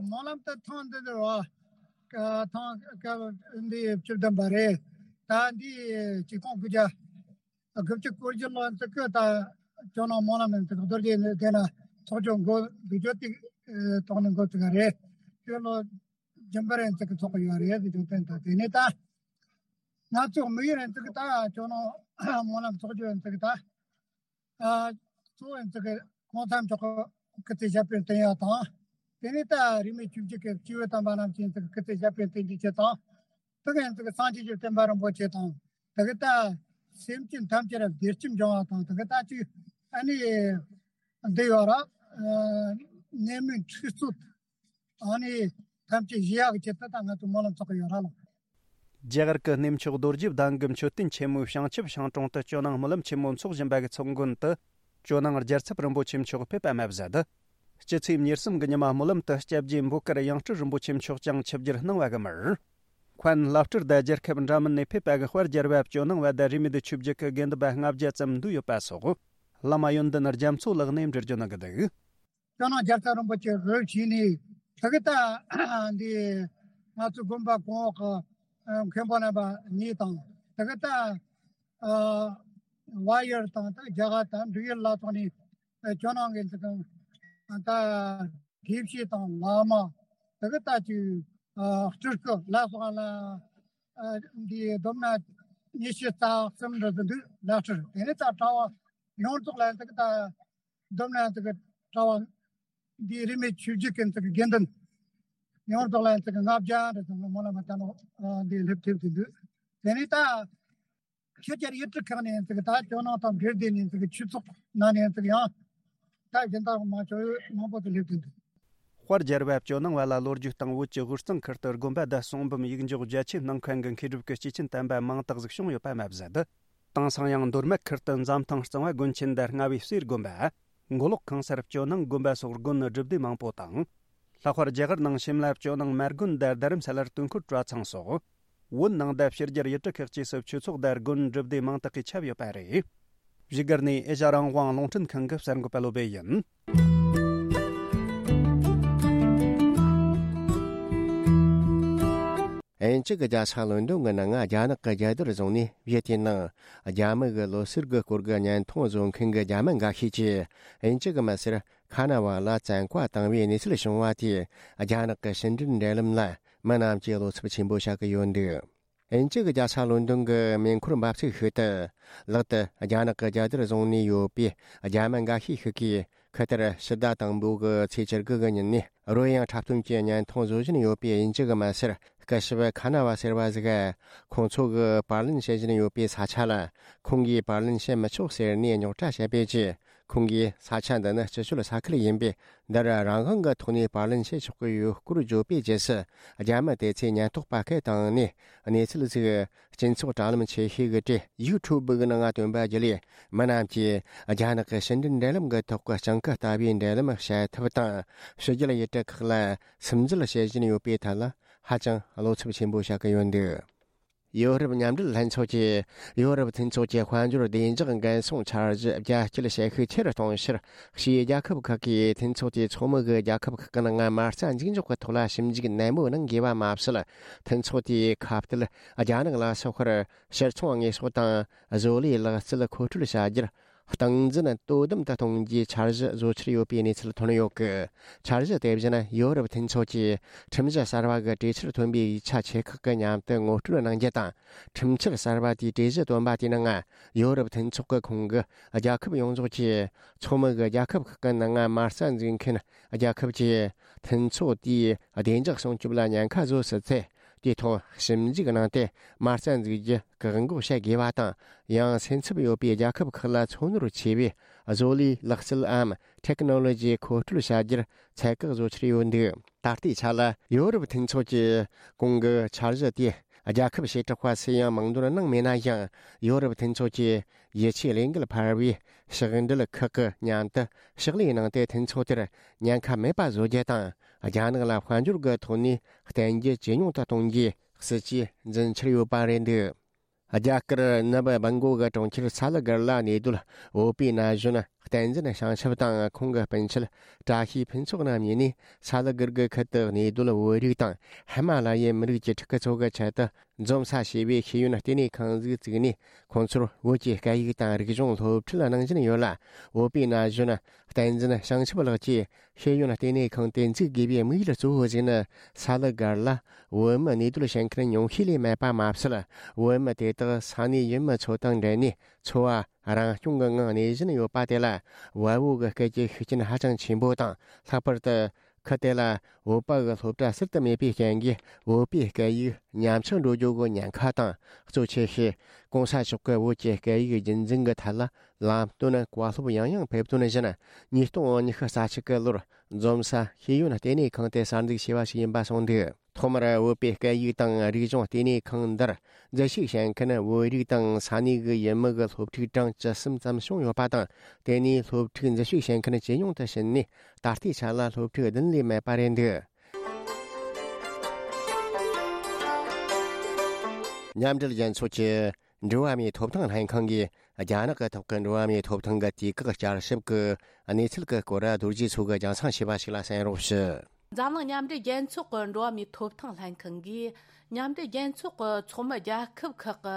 སྨོན་ལམ་དུ་ཐེངས་འདི་འདིར་བ། ཐེངས་སྐབས་འདི་བཅུ་བདུན་པ་རེད། ད་འདི་ཆིག་སྟོང་དགུ་བརྒྱ་དགུ་བཅུ་གོ་བཞི་ལོ་ཚིག་གི་ད་ཇོ་ནང་སྨོན་ལམ་ཡང་ཚིག་རྡོ་རྗེ་གདན་ན་ཚོགས་ཆུང་འགོ་འཛུགས་རྒྱུ་དེ་ཐོག་ནས་འགོ་བཙུགས་པ་རེད། དེ་ལོ་རྒྱུན་པར་ཡང་ཚིག་གི་ཚོགས་ཡོད་རེད་ཟེར་རྒྱུ་དེ་ད་དེ་ནས་ད་ང་ཚོ་དམིགས་ཡུལ་ཡང་ཚིག་ད་ཇོ་ནང་སྨོན་ལམ་ཚོགས་རྒྱུ་ཡང་ཚིག་ད། ཨ། གཙོ་བོ་ཡིན་ཚུལ་གྱི་གོང་ས་མཆོག་གི་སྐུ་ཚེ་ཞབས་པད་བརྟན་ཡག་དང་། དེ་ནས་ད་རིས་མེད་ཆོས་བརྒྱུད་ཀྱི་སྐྱེས་བུ་དམ་པ་རྣམས་ཀྱི་ཚུལ་གྱི་སྐུ་ཚེ་ཞབས་པད་བརྟན་གྱི་ཆེད་དང་། དེ་ག་ཡིན་ཚུལ་གྱི་སངས་རྒྱས་ཀྱི་བསྟན་པ་རིན་པོ་ཆེ་དང་། དེ་ག་ད་སེམས་ཅན་ཐམས་ཅད་ལ་བདེ་སྐྱིད་འབྱུང་བ་དང་། དེ་ག་ད་ཅིག་ཨ་ནི་འདི་ཡོད་ར། ནད་མུག་འཁྲུག་རྩོད། ཨ་ནི་ཐམས་ཅད་ཞི་ཡག་གི་ཆེད་དུ་ད་ང་ཚོ་སྨོན་ལམ་ཚོགས་ཀྱི་ཡོད་ར་ལགས། རྒྱ་གར་གྱི་གནས་མཆོག་རྡོ་རྗེ་གདན་གྱི་མཆོད་རྟེན་ཆེན་མོའི་བྱང་ཆུབ་ཤིང་དྲུང་དུ་ཇོ་ནང་སྨོན་ལམ་ཆེན་མོ་འཚོགས་བཞིན་པ་གི་ཚོགས་མགོན་དུ་ཇོ་ནང་རྒྱལ་ཚབ་རིན་པོ་ཆེ་མཆོག་ཕེབས་པ་མ་ཟད། སྤྱི་ཚེས་ཉེར་གསུམ་གྱི་ཉི་མ་སྨོན་ལམ་དུ་སྐྱབས་རྗེ་འབོད་དཀར་ཡང་སྤྲུལ་རིན་པོ་ཆེ་མཆོག་ཀྱང་ཆིབས་བསྒྱུར་གནང་བ་གི་མར། མཁན་བླ་སྤྲུལ་དང་རྒྱལ་ཁབ་འདྲ་མིན་ནས་ཕེབས་པ་གི་དཔལ་རྒྱལ་བ་ཇོ་ནང་བ་དང་རིས་མེད་ཆོས་བརྒྱུད་ཀྱི་དགེ་འདུན་པ་ལྔ་བརྒྱ་ཙམ་འདུས་ཡོད་པ་སོགས། བླ་མ་ཡོན་ཏན་རྒྱ་མཚོ་ལགས་ནས་འགྲེལ་བརྗོད་གནང་གི་འདུག། ཇོ་ནང་རྒྱལ་ཚབ་རིན་པོ་ཆེ་འོས་ཆེན་ནས་དེ་གི་ད་འདི་ང་ཚོ་དགོན་པ་གོང་འོག་གི་མཁན་པོ་རྣམ་པ་གཉིས་དང་། དེ་གི་ད་བལ་ཡུལ་དང་ད་རྒྱ་གར་དང་འབྲུག་ཡུལ་ལ་སོགས་ནས་ཇོ་ནང་གི་ད་དགེ་བཤེས་དང་བླ་མ། དེ་གི་ད་ཅིག་སྤྲུལ་སྐུ་ལ་སོགས་ལ་འདི་བསྡོམས་ན་ཉི་ཤུ་རྩ་གསུམ་འདྲ་ཟིག་འདུག། ལག་ཁྲིར་དེ་ནས་ད་གྲྭ་བ་ཡོངས་རྫོགས་ལ་དེ་གི་ད། བསྡོམས་ན་དེ་གི་གྲྭ་བ་ འདིའི་རིས་མེད་ཆོས་བརྒྱུད་ཀྱི་ཚིག་དགེ་འདུན་ཡོངས་རྫོགས་ལ་ཚིག་ལྔ་བརྒྱ་རེ་ཙམ་གྱི་སྨོན་ལམ་བཏབ་ནོ། འདི་སླེབས་ཐེབས་ཀྱི་འདུག་དེ་ནས་ད་ཆོས་རྒྱལ་ཡུལ་གྲུ་ཁག་ནས་ཚིག་ད་ཇོ་ནང་དང་འབྲེལ་ཏེ་ནས་ཚིག་ཆོས་ཚོགས་ནང་ནས་ཚིག་ཡང་ད་གཞན་དག་མ་ཆོག་མང་པོ་ཅིག་སླེབས་ཀྱི་འདུག་དཔལ་རྒྱལ་བ་ཇོ་ནང་བ་ལ་ལོ་རྒྱུས་དང་བོད་ཀྱི་དབུས་གཙང་ཁུལ་དུ་དགོན་པ་བརྡལ་གསུངས་འབུམ་ཡིག་འཇོག་རྒྱ་ཆེ་གནང་མཁན་གྱི་མཁས་གྲུབ་ཀྱི་སྐྱེས་ཆེན་དམ་པ་མང་དག་ཟིག་བྱུང་ཡོད་པ་མ་ཟད། དེང་སང་ཡང་མདོ་སྨད་ཁུལ་དུ་འཛམ་ཐང་གཙང་བ་དགོན་ཆེན་དང་རྔ་བའི་གསེར་དགོན་པ། མགོ་ལོག་ཁང་གསར་ཇོ་ནང་དགོན་པ་སོགས་དགོན་སྒྲུབ་སྡེ་མང་པོ་དང་། ལྷག་པར་རྒྱ་གར་ནང་ཤིམ་ལ་ཇོ་ནང་མ་དགོན་དང་རྡ་རམ་ས་ལར་དུས་འཁོར་གྲྭ་ཚང་སོགས། བོད་ནང་དང་ཕྱི་རྒྱལ་ཡུལ་གྲུ་ཁག་ཅིག་སུ་ཆོས་ཚོགས་དང་དགོན་སྒྲུབ་སྡེ་མང་དག་གིས་ཁྱབ་ཡོད་པ་རེད། བཞུགས་སྒར་ནས་ཨེ་ཤ་རང་དབང་རླུང་འཕྲིན་ཁང་གི་གསར་འགོད་པ་བློ་བྷེ་ཡིན། དབྱིན་ཇི་གི་རྒྱལ་ས་ལོན་ཌོན་གྱི་ནང་རྒྱ་ནག་གི་རྒྱལ་དར་བཟུང་ནས་བཞུགས་དུས་ནང་རྒྱ་མི་གི་ལོ་གསར་གྱི་སྐོར་གྱི་བརྙན་ཐུང་བཟོ་མཁན་གྱི་རྒྱ་མི་འགའ་ཤས་ཀྱིས་དབྱིན་ཇི་གི་མི་སེར་ཁ་ན་བ་ལ་བཙན་བཀའ་བཏང་བའི་གནས་ཚུལ་བྱུང་བ་དེས་རྒྱ་ནག་གི་ཕྱི་འབྲེལ་འབྲེལ་ལམ་ལ་མི་རྣམས་ཀྱིས་བློ་འཚབ་ཆེན་པོ་བྱ་གི་ཡོད་འདུག་དབྱིན་ཇི་གི་རྒྱལ་ས་ལོན་ཌོན་གྱི་མེ་འཁོར་འབབ་ཚིགས་ཤིག་ཏུ་ལག་ཏུ་རྒྱ་ནག་གི་རྒྱལ་དར་བཟུང་ནས་ཡོད་པའི་རྒྱ་མི་འགའ་ཤས་ཤིག་གིས། ཁུ་ཐེར་ཕྱི་ཟླ་དང་པོ་གི་ཚེས་བཅུ་དགུ་གི་ཉིན་ནས་རོལ་དབྱངས་འཁྲབ་སྟོན་གྱི་བརྙན་ཐུང་བཟོ་བཞིན་ཡོད་པའི་དབྱིན་ཇི་གི་མི་སེར་སྐུ་ཞབས་ཁ་ན་བ་ཟེར་བ་ཟིག་ཁོང་ཚོ་གིས་པར་ལེན་བྱེད་བཞིན་ཡོད་པའི་ས་ཆ་ལ་ཁོང་གིས་པར་ལེན་བྱེད་མི་ཆོག་ཟེར་ནས་རྙོག་དྲ་བྱས་པའི་རྗེས། ཁོང་གིས་ས་ཆ་འདི་ནི་སྤྱི་སྤྱོད་ས་ཁུལ་ཡིན་པས། འདིར་རང་དབང་གི་ཐོག་ནས་པར་ལེན་བྱེད་ཆོག་གི་ཡོད་སྐོར་བརྗོད་པའི་རྗེས་སུ། རྒྱ་མི་དེ་ཚོས་ཉེན་རྟོག་པ་སྐད་བཏང་ནས་གནས་ཚུལ་ཟིག་སྤྱི་ཚོགས་དྲ་ལམ་ཆེ་ཤོས་ཀྱི་གྲས་ཡུ་ཊུབ་གི་ནང་བཏོན་པ་བརྒྱུད་ལས། མི་རྣམས་ཀྱིས་རྒྱ་ནག་གི་ཕྱི་འབྲེལ་འབྲེལ་ལམ་གྱི་ཐོག་གི་སྤྱང་ཀི་ལྟ་བུའི་འབྲེལ་ལམ་བྱེད་ཐབས་དང་། ཕྱི་རྒྱལ་ཡུལ་གྲུ་ཁག་ལ་སིམ་འཛུལ་བྱེད་བཞིན་ཡོད་པའི་ཐད་ལ་ཧ་ཅང་བློ་འཚབ་ཆེན་པོ་བྱ་གི་ཡོད་འདུག་ཡོ་རོབ་མཉམ་འབྲེལ་ལྷན་ཚོགས་ཀྱིས་ཡོ་རོབ་མཐུན་ཚོགས་ཀྱི་དཔལ་འབྱོར་བདེ་འཇགས་འགན་སྲུང་འཆར་གཞི་རྒྱ་སྐྱེད་བྱེད་ཤུགས་ཆེ་རུ་གཏོང་ཕྱིར། ཕྱིའི་རྒྱལ་ཁབ་ཁག་གིས་མཐུན་ཚོགས་དེའི་ཚོགས་མི་གི་རྒྱལ་ཁབ་ཁག་གི་ནང་མ་རྩ་འཛུགས་འཇོག་གི་ཐོག་ལ་ཞིབ་འཇུག་ནན་མོ་གནང་དགོས་པ་མ་ཟད། མཐུན་ཚོགས་དེའི་ཁ་གཏད་རྒྱ་ནག་ལ་སོགས་པར་ཕྱིར་ཚོང་དངོས་ཟོག་དང་བཟོ་ལས་ལག་རྩལ་མཁོ་སྤྲོད་བྱ་རྒྱུར། སྟངས་འཛིན་དོ་དམ་དུ་གཏོང་རྒྱུའི་འཆར་གཞི་བཟོ་འཆར་ཡོད་པའི་གནས་ཚུལ་ཐོན་ཡོད་སྐད། འཆར་གཞི་དེ་བཞིན་ཡོ་རོབ་མཐུན་ཚོགས་ཀྱི་ཁྲིམས་གཞི་གསར་བ་གི་གྲོས་ཆོད་ཐོན་པའི་ཡིག་ཆ་ཆེ་ཁག་གི་མཉམ་དུ་ངོ་སྤྲོད་གནང་རྒྱུ་དང་། ཁྲིམས་འཆར་གསར་བ་དེའི་གྲོས་གཞི་བཏོན་པ་དེའི་ནང་ཡོ་རོབ་མཐུན་ཚོགས་ཀྱི་ཁོངས་ཀྱི་རྒྱལ་ཁབ་ཡོངས་རྫོགས་ཀྱི་ཚོགས་མི་གི་རྒྱལ་ཁབ་ཁག་གི་ནང་མ་རྩ་འཛུགས་མཁན་རྒྱལ་ཁབ་ཀྱིས་མཐུན་ཚོགས་དེའི་བདེ་འཇགས་སྲུང་སྐྱོབ་ལ་ཉེན་ཁ་བཟོ་སྲིད་ཚེ། དེའི་ཐོག་ཞིབ་འཇུག་གནང་སྟེ་མ་རྩ་འཛུགས་རྒྱུ་བཀག་འགོག་བྱེད་དགོས་པ་དང་། ཡང་སེམས་འཚབ་ཡོད་པའི་རྒྱལ་ཁབ་ཁག་ལ་ཚོན་རོལ་ཆེ་བའི་བཟོ་ལས་ལག་རྩལ་འམ་ཊེག་ནོ་ལོ་ཇི་མཁོ་སྤྲོད་བྱ་རྒྱུར་ཚད་བཀག་བཟོ་འཆར་ཡོད་འདུག་ད་ལྟའི་ཆ་ལ་ཡོ་རོབ་མཐུན་ཚོགས་ཀྱི་གོང་གི་འཆར་གཞི་དེ་རྒྱལ་ཁབ་བྱེ་བྲག་པ་སུས་ཡང་མིང་འདོན་གནང་མེད་ན་ཡང་། ཡོ་རོབ་མཐུན་ཚོགས་ཀྱི་ཡིད་ཆེས་ལས་འགུལ་འཕར་བའི་ཕྱག་འབྲེལ་ཁག་གི་མཉམ་དུ་ཕྱག་ལས་གནང་སྟེ། མཐུན་ཚོགས་དེར་ཉེན་ཁ་མེད་པ་བཟོ་རྒྱུ་དང་། རྒྱ་ནག་ལ་དཔལ་འབྱོར་གྱི་ཐོག་ནས་བརྟེན་རྒྱུ་ཇེ་ཉུང་དུ་གཏོང་རྒྱུའི་སྲིད་ཇུས་འཛིན་འཆར་ཡོད་པ་རེད་འདུག་རྒྱ་གར་ནུབ་སྦུན་གོ་གི་གྲོང་ཁྱེར་ས་ལི་གར་ལ་གནས་སྡོད་བོད་པའི་ན་གཞོན་བསྟན་འཛིན་བྱང་ཆུབ་དང་ཁོང་གི་སྤུན་མཆེད་བཀྲ་ཤིས་ཕུན་ཚོགས་རྣམ་གཉིས་ནས། ས་ལི་གར་གྱི་ཁུལ་དུ་གནས་སྡོད་བོད་རིགས་དང་ཧི་མ་ལ་ཡའི་མི་རིགས་ཀྱི་ཕྲུ་གུ་ཚོ་གི་ཆེད་དུ་འཛོམས་ས་ཞེས་པའི་ཤེས་ཡོན་ལྟེ་གནས་ཁང་ཞིག་བཙུགས་ནས། ཁོང་ཚོར་བོད་ཀྱི་སྐད་ཡིག་དང་རིག་གཞུང་སློབ་ཁྲིད་གནང་བཞིན་ཡོད་ལ། བོད་པའི་ན་གཞོན་བསྟན་འཛིན་བྱང་ཆུབ་ལགས་ཀྱིས། ཤེས་ཡོན་ལྟེ་གནས་ཁང་དེ་འཛུགས་དགོས་པའི་དམིགས་ཡུལ་གཙོ་བོ་ཞིག་ནི། ས་ལི་གར་ལ་བོད་མི་གནས་སྡོད་བྱེད་མཁན་ཉུང་ཤས་ལས་མེད་པ་མ་ཟད། བོད་མི་དེ་དག་ས་གནས་ཡུལ་མི་ཚོ་དང་འབྲེལ་ནས་འཚོ་བ་རང་སྐྱོང་གི་ངང་གནས་བཞིན་ཡོད་པ་དེ་ལ། བལ་པོ་གི་སྐད་ཀྱི་ཤུགས་རྐྱེན་ཧ་ཅང་ཆེན་པོ་དང་། ལྷག་པར་དུ་ཁུལ་དེ་ལ་བོད་པ་གི་སློབ་གྲྭ་ཟུར་དུ་མེད་པའི་རྐྱེན་གྱིས། བོད་པའི་སྐད་ཡིག་ཉམས་ཆག་འགྲོ་རྒྱུ་གི་ཉེན་ཁ་དང་། གཙོ་ཆེ་ཤོས་གོང་ས་མཆོག་གི་བོད་ཀྱི་སྐད་ཡིག་རྒྱུན་འཛིན་གྱི་ཐད་ལ་ལམ་སྟོན་བཀའ་སློབ་ཡང་ཡང་ཕེབས་དོན་བཞིན། ཉིས་སྟོང་ཉི་ཤུ་རྩ་གཅིག་གི་ལོར་འཛོམས་ས་ཤེས་ཡོན་ལྟེ་གནས་ཁང་དེ་གསར་འཛུགས་བྱས་པ་ཞིག་ཡིན་པ་གསུངས་འདུག་ཐོག་མར་བོད་པའི་སྐད་ཡིག་དང་རིག་གཞུང་ལྟེ་གནས་ཁང་འདིར་འཛུལ་ཞུགས་བྱེད་མཁན་བོད་རིགས་དང་ས་གནས་ཀྱི་ཡུལ་མི་གི་སློབ་ཕྲུག་གྲངས་བཅུ་གསུམ་ཙམ་བྱུང་ཡོད་པ་དང་། དེ་ནས་སློབ་ཕྲུག་འཛུལ་ཞུགས་བྱེད་མཁན་ཇེ་ཉུང་དུ་ཕྱིན་ནས། ད་ལྟའི་ཆ་ལ་སློབ་ཕྲུག་བདུན་ལས་མེད་པ་རེད་འདུག་མཉམ་འབྲེལ་རྒྱལ་ཚོགས་ཀྱི་འགྲོ་བ་མིའི་ཐོབ་ཐང་ལྷན་ཁང་གིས་རྒྱ་ནག་གི་ཐོག་གི་འགྲོ་བ་མིའི་ཐོབ་ཐང་གི་དུས་བཀག་བསྐྱར་ཞིབ་ཀྱི་གནས་ཚུལ་གྱི་སྐོར་རྡོ་རྗེ་མཚོ་གིས་རྒྱང་སྲིང་བྱས་པ་ཞིག་ལ་གསན་རོགས་ཞུ། འཛམ་གླིང་མཉམ་འབྲེལ་རྒྱལ་ཚོགས་ཀྱི་འགྲོ་བ་མིའི་ཐོབ་ཐང་ལྷན་ཁང་གིས། མཉམ་འབྲེལ་རྒྱལ་ཚོགས་ཀྱི་ཚོགས་མི་རྒྱལ་ཁབ་ཁག་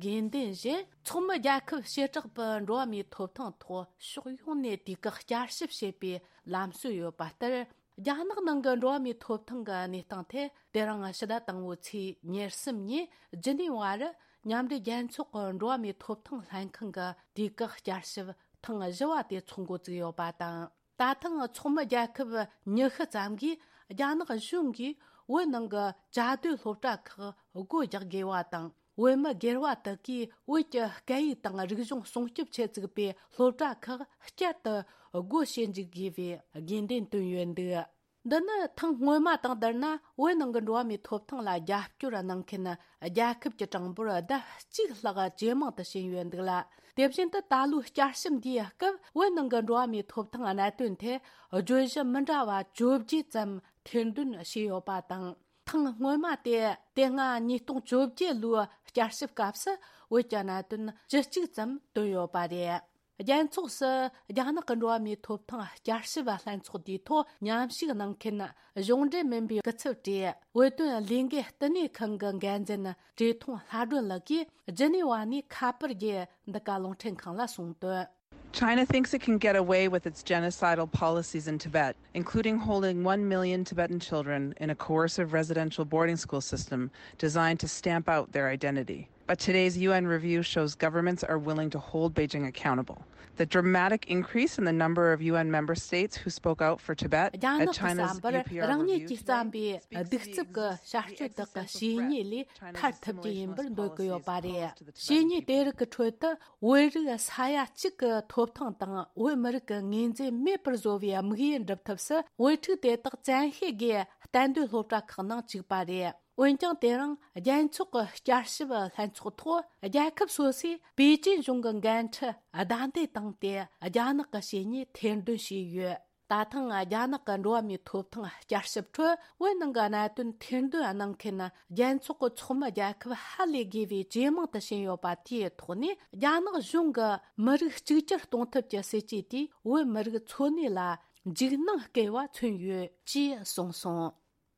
གི་དགོས་འདུན་བཞིན། ཚོགས་མི་རྒྱལ་ཁབ་བྱེ་བྲག་པའི་འགྲོ་བ་མིའི་ཐོབ་ཐང་ཐོག་ཕྱོགས་ཡོངས་ནས་དུས་བཀག་བསྐྱར་ཞིབ་བྱེད་པའི་ལམ་སྲོལ་ཡོད་པ་ལྟར། རྒྱ་ནག་ནང་གི་འགྲོ་བ་མིའི་ཐོབ་ཐང་གི་གནས་སྟངས་ཐད། དེ་རིང་ཕྱི་ཟླ་དང་པོའི་ཚེས་ཉེར་གསུམ་ཉིན་ཇི་ནི་ཝར་མཉམ་འབྲེལ་རྒྱལ་ཚོགས་ཀྱི་འགྲོ་བ་མིའི་ཐོབ་ཐང་ལྷན་ཁང་གི་དུས་བཀག་བསྐྱར་ཞིབ་ཐེངས་བཞི་བ་དེ་ཚོགས་འགོ་བཙུགས་ཡོད་པ་དང་། ད་ཐེངས་ཚོགས་མི་རྒྱལ་ཁབ་ཉི་ཤུ་ཙམ་གིས་རྒྱ་ནག་གཞུང་གིས་བོད་ནང་གི་བཅའ་སྡོད་སློབ་གྲྭ་ཁག་སྒོ་རྒྱག་དགོས་པ་དང་། བོད་མི་སྒེར་བ་དག་གིས་བོད་ཀྱི་སྐད་ཡིག་དང་རིག་གཞུང་སྲུང་སྐྱོབ་ཆེད་བཙུགས་པའི་སློབ་གྲྭ་ཁག་བསྐྱར་དུ་སྒོ་ཕྱེ་འཇུག་དགོས་པའི་དགོས་འདུན་བཏོན་ཡོད་འདུག། འདི་ནི་ཐེངས་སྔོན་མ་དང་བསྡུར་ན། བོད་ནང་གི་འགྲོ་བ་མིའི་ཐོབ་ཐང་ལ་རྒྱབ་སྐྱོར་གནང་མཁན་རྒྱལ་ཁབ་ཀྱི་གྲངས་འབོར་ལྡབ་གཅིག་ལྷག་ཇེ་མང་དུ་ཕྱིན་ཡོད་འདུག་ལ། དེ་བཞིན་དུ་ད་ལོའི་བསྐྱར་ཞིབ་འདིའི་སྐབས་བོད་ནང་གི་འགྲོ་བ་མིའི་ཐོབ་ཐང་གནད་དོན་ཐད་བརྗོད་གཞི་མི་འདྲ་བ་བཅོ་བརྒྱད་ཙམ་ཐེར་འདོན་བྱས་ཡོད་པ་དང་། ཐེངས་སྔོན་མ་དེ་དེ་སྔ་ཉིས་སྟོང་བཅོ་བརྒྱད་ལོའི་བསྐྱར་ཞིབ་སྐབས་སུ་བོད་ཀྱི་གནད་དོན་བཅུ་གཅིག་ཙམ་བཏོན་ཡོད་པ་རེད། རྒྱལ་ཚོགས་སུ་རྒྱ་ནག་གི་འགྲོ་བ་མིའི་ཐོབ་ཐང་བསྐྱར་ཞིབ་ལྷན་ཚོགས་དེའི་ཐོག་མཉམ་ཞུགས་གནང་མཁན་གཞུང་འབྲེལ་མིན་པའི་སྐུ་ཚབ་གྲས་བོད་དོན་ལས་འགུལ་བསྟི་གནས་ཁང་གི་འགན་འཛིན་བཀྲས་མཐོང་ལྷ་སྒྲོན་ལགས་ཀྱིས་ཇི་ནི་ཝ་ནས་ཁ་པར་གྱི་འདི་ག་རླུང་འཕྲིན་ཁང་ལ་གསུངས་དོན། China thinks it can get away with its genocidal policies in Tibet, including holding one million Tibetan children in a coercive residential boarding school system designed to stamp out their identity. But today's U N review shows governments are willing to hold Beijing accountable. The dramatic increase in the number of U N member states who spoke out for Tibet རྒྱ་ནག་གི་China's བསམ་པར་རང་ཉིད་ཀྱིས་བརྩམས་པའི་གདུག་རྩུབ་ཀྱི་བྱ་སྤྱོད་དག་གི་བྱས་ཉེས་ལས་ཐར་ཐུབ་རྒྱུ་ཡིན་པར་འདོད་ཀྱི་ཡོད་པ་རེད། བྱས་ཉེས་དེ་རིགས་ཀྱི་ཁྲོད་དུ་བོད་རིགས་ས་ཡ་གཅིག་གི་ཐོབ་ཐང་དང་བོད་མི་རིགས་ཀྱི་ངོས་འཛིན་མེད་པར་བཟོ་བའི་དམིགས་ཡུལ་འགྲུབ་ཐབས་སུ་བོད་ཕྲུག་དེ་དག་བཙན་ཤེད་ཀྱིས་གཏན་སྡོད་སློབ་གྲྭ་ཁག་ནང་བཅུག་པ་རེད། འོན་ཀྱང་དེ་རིང་རྒྱལ་ཚོགས་ཀྱི་བསྐྱར་ཞིབ་ལྷན་ཚོགས་ཐོག་རྒྱལ་ཁབ་སོ་སོས་པེ་ཅིན་གཞུང་གི་འགན་འཁྲི་བདའ་འདེད་བཏང་སྟེ་རྒྱ་ནག་གི་བྱས་ཉེས་ཐེར་འདོན་བྱས་ཡོད། ད་ཐེངས་རྒྱ་ནག་གི་འགྲོ་བ་མིའི་ཐོབ་ཐང་བསྐྱར་ཞིབ་ཁྲོད་བོད་ནང་གི་གནད་དོན་ཐེར་འདོན་གནང་མཁན་རྒྱལ་ཚོགས་ཀྱི་ཚོགས་མི་རྒྱལ་ཁབ་ཧ་ལས་དགོས་པའི་ཇེ་མང་དུ་ཕྱིན་ཡོད་པ་དེའི་ཐོག་ནས། རྒྱ་ནག་གཞུང་གི་མི་རིགས་གཅིག་གྱུར་གཏོང་ཐབས་ཀྱི་སྲིད་ཇུས་དེས་བོད་མི་རིགས་འཚོ་གནས་ལ་འཇིགས་སྣང་སྐྱེ་བ་མཚོན་ཡོད་ཅེས་གསུངས་སོང་།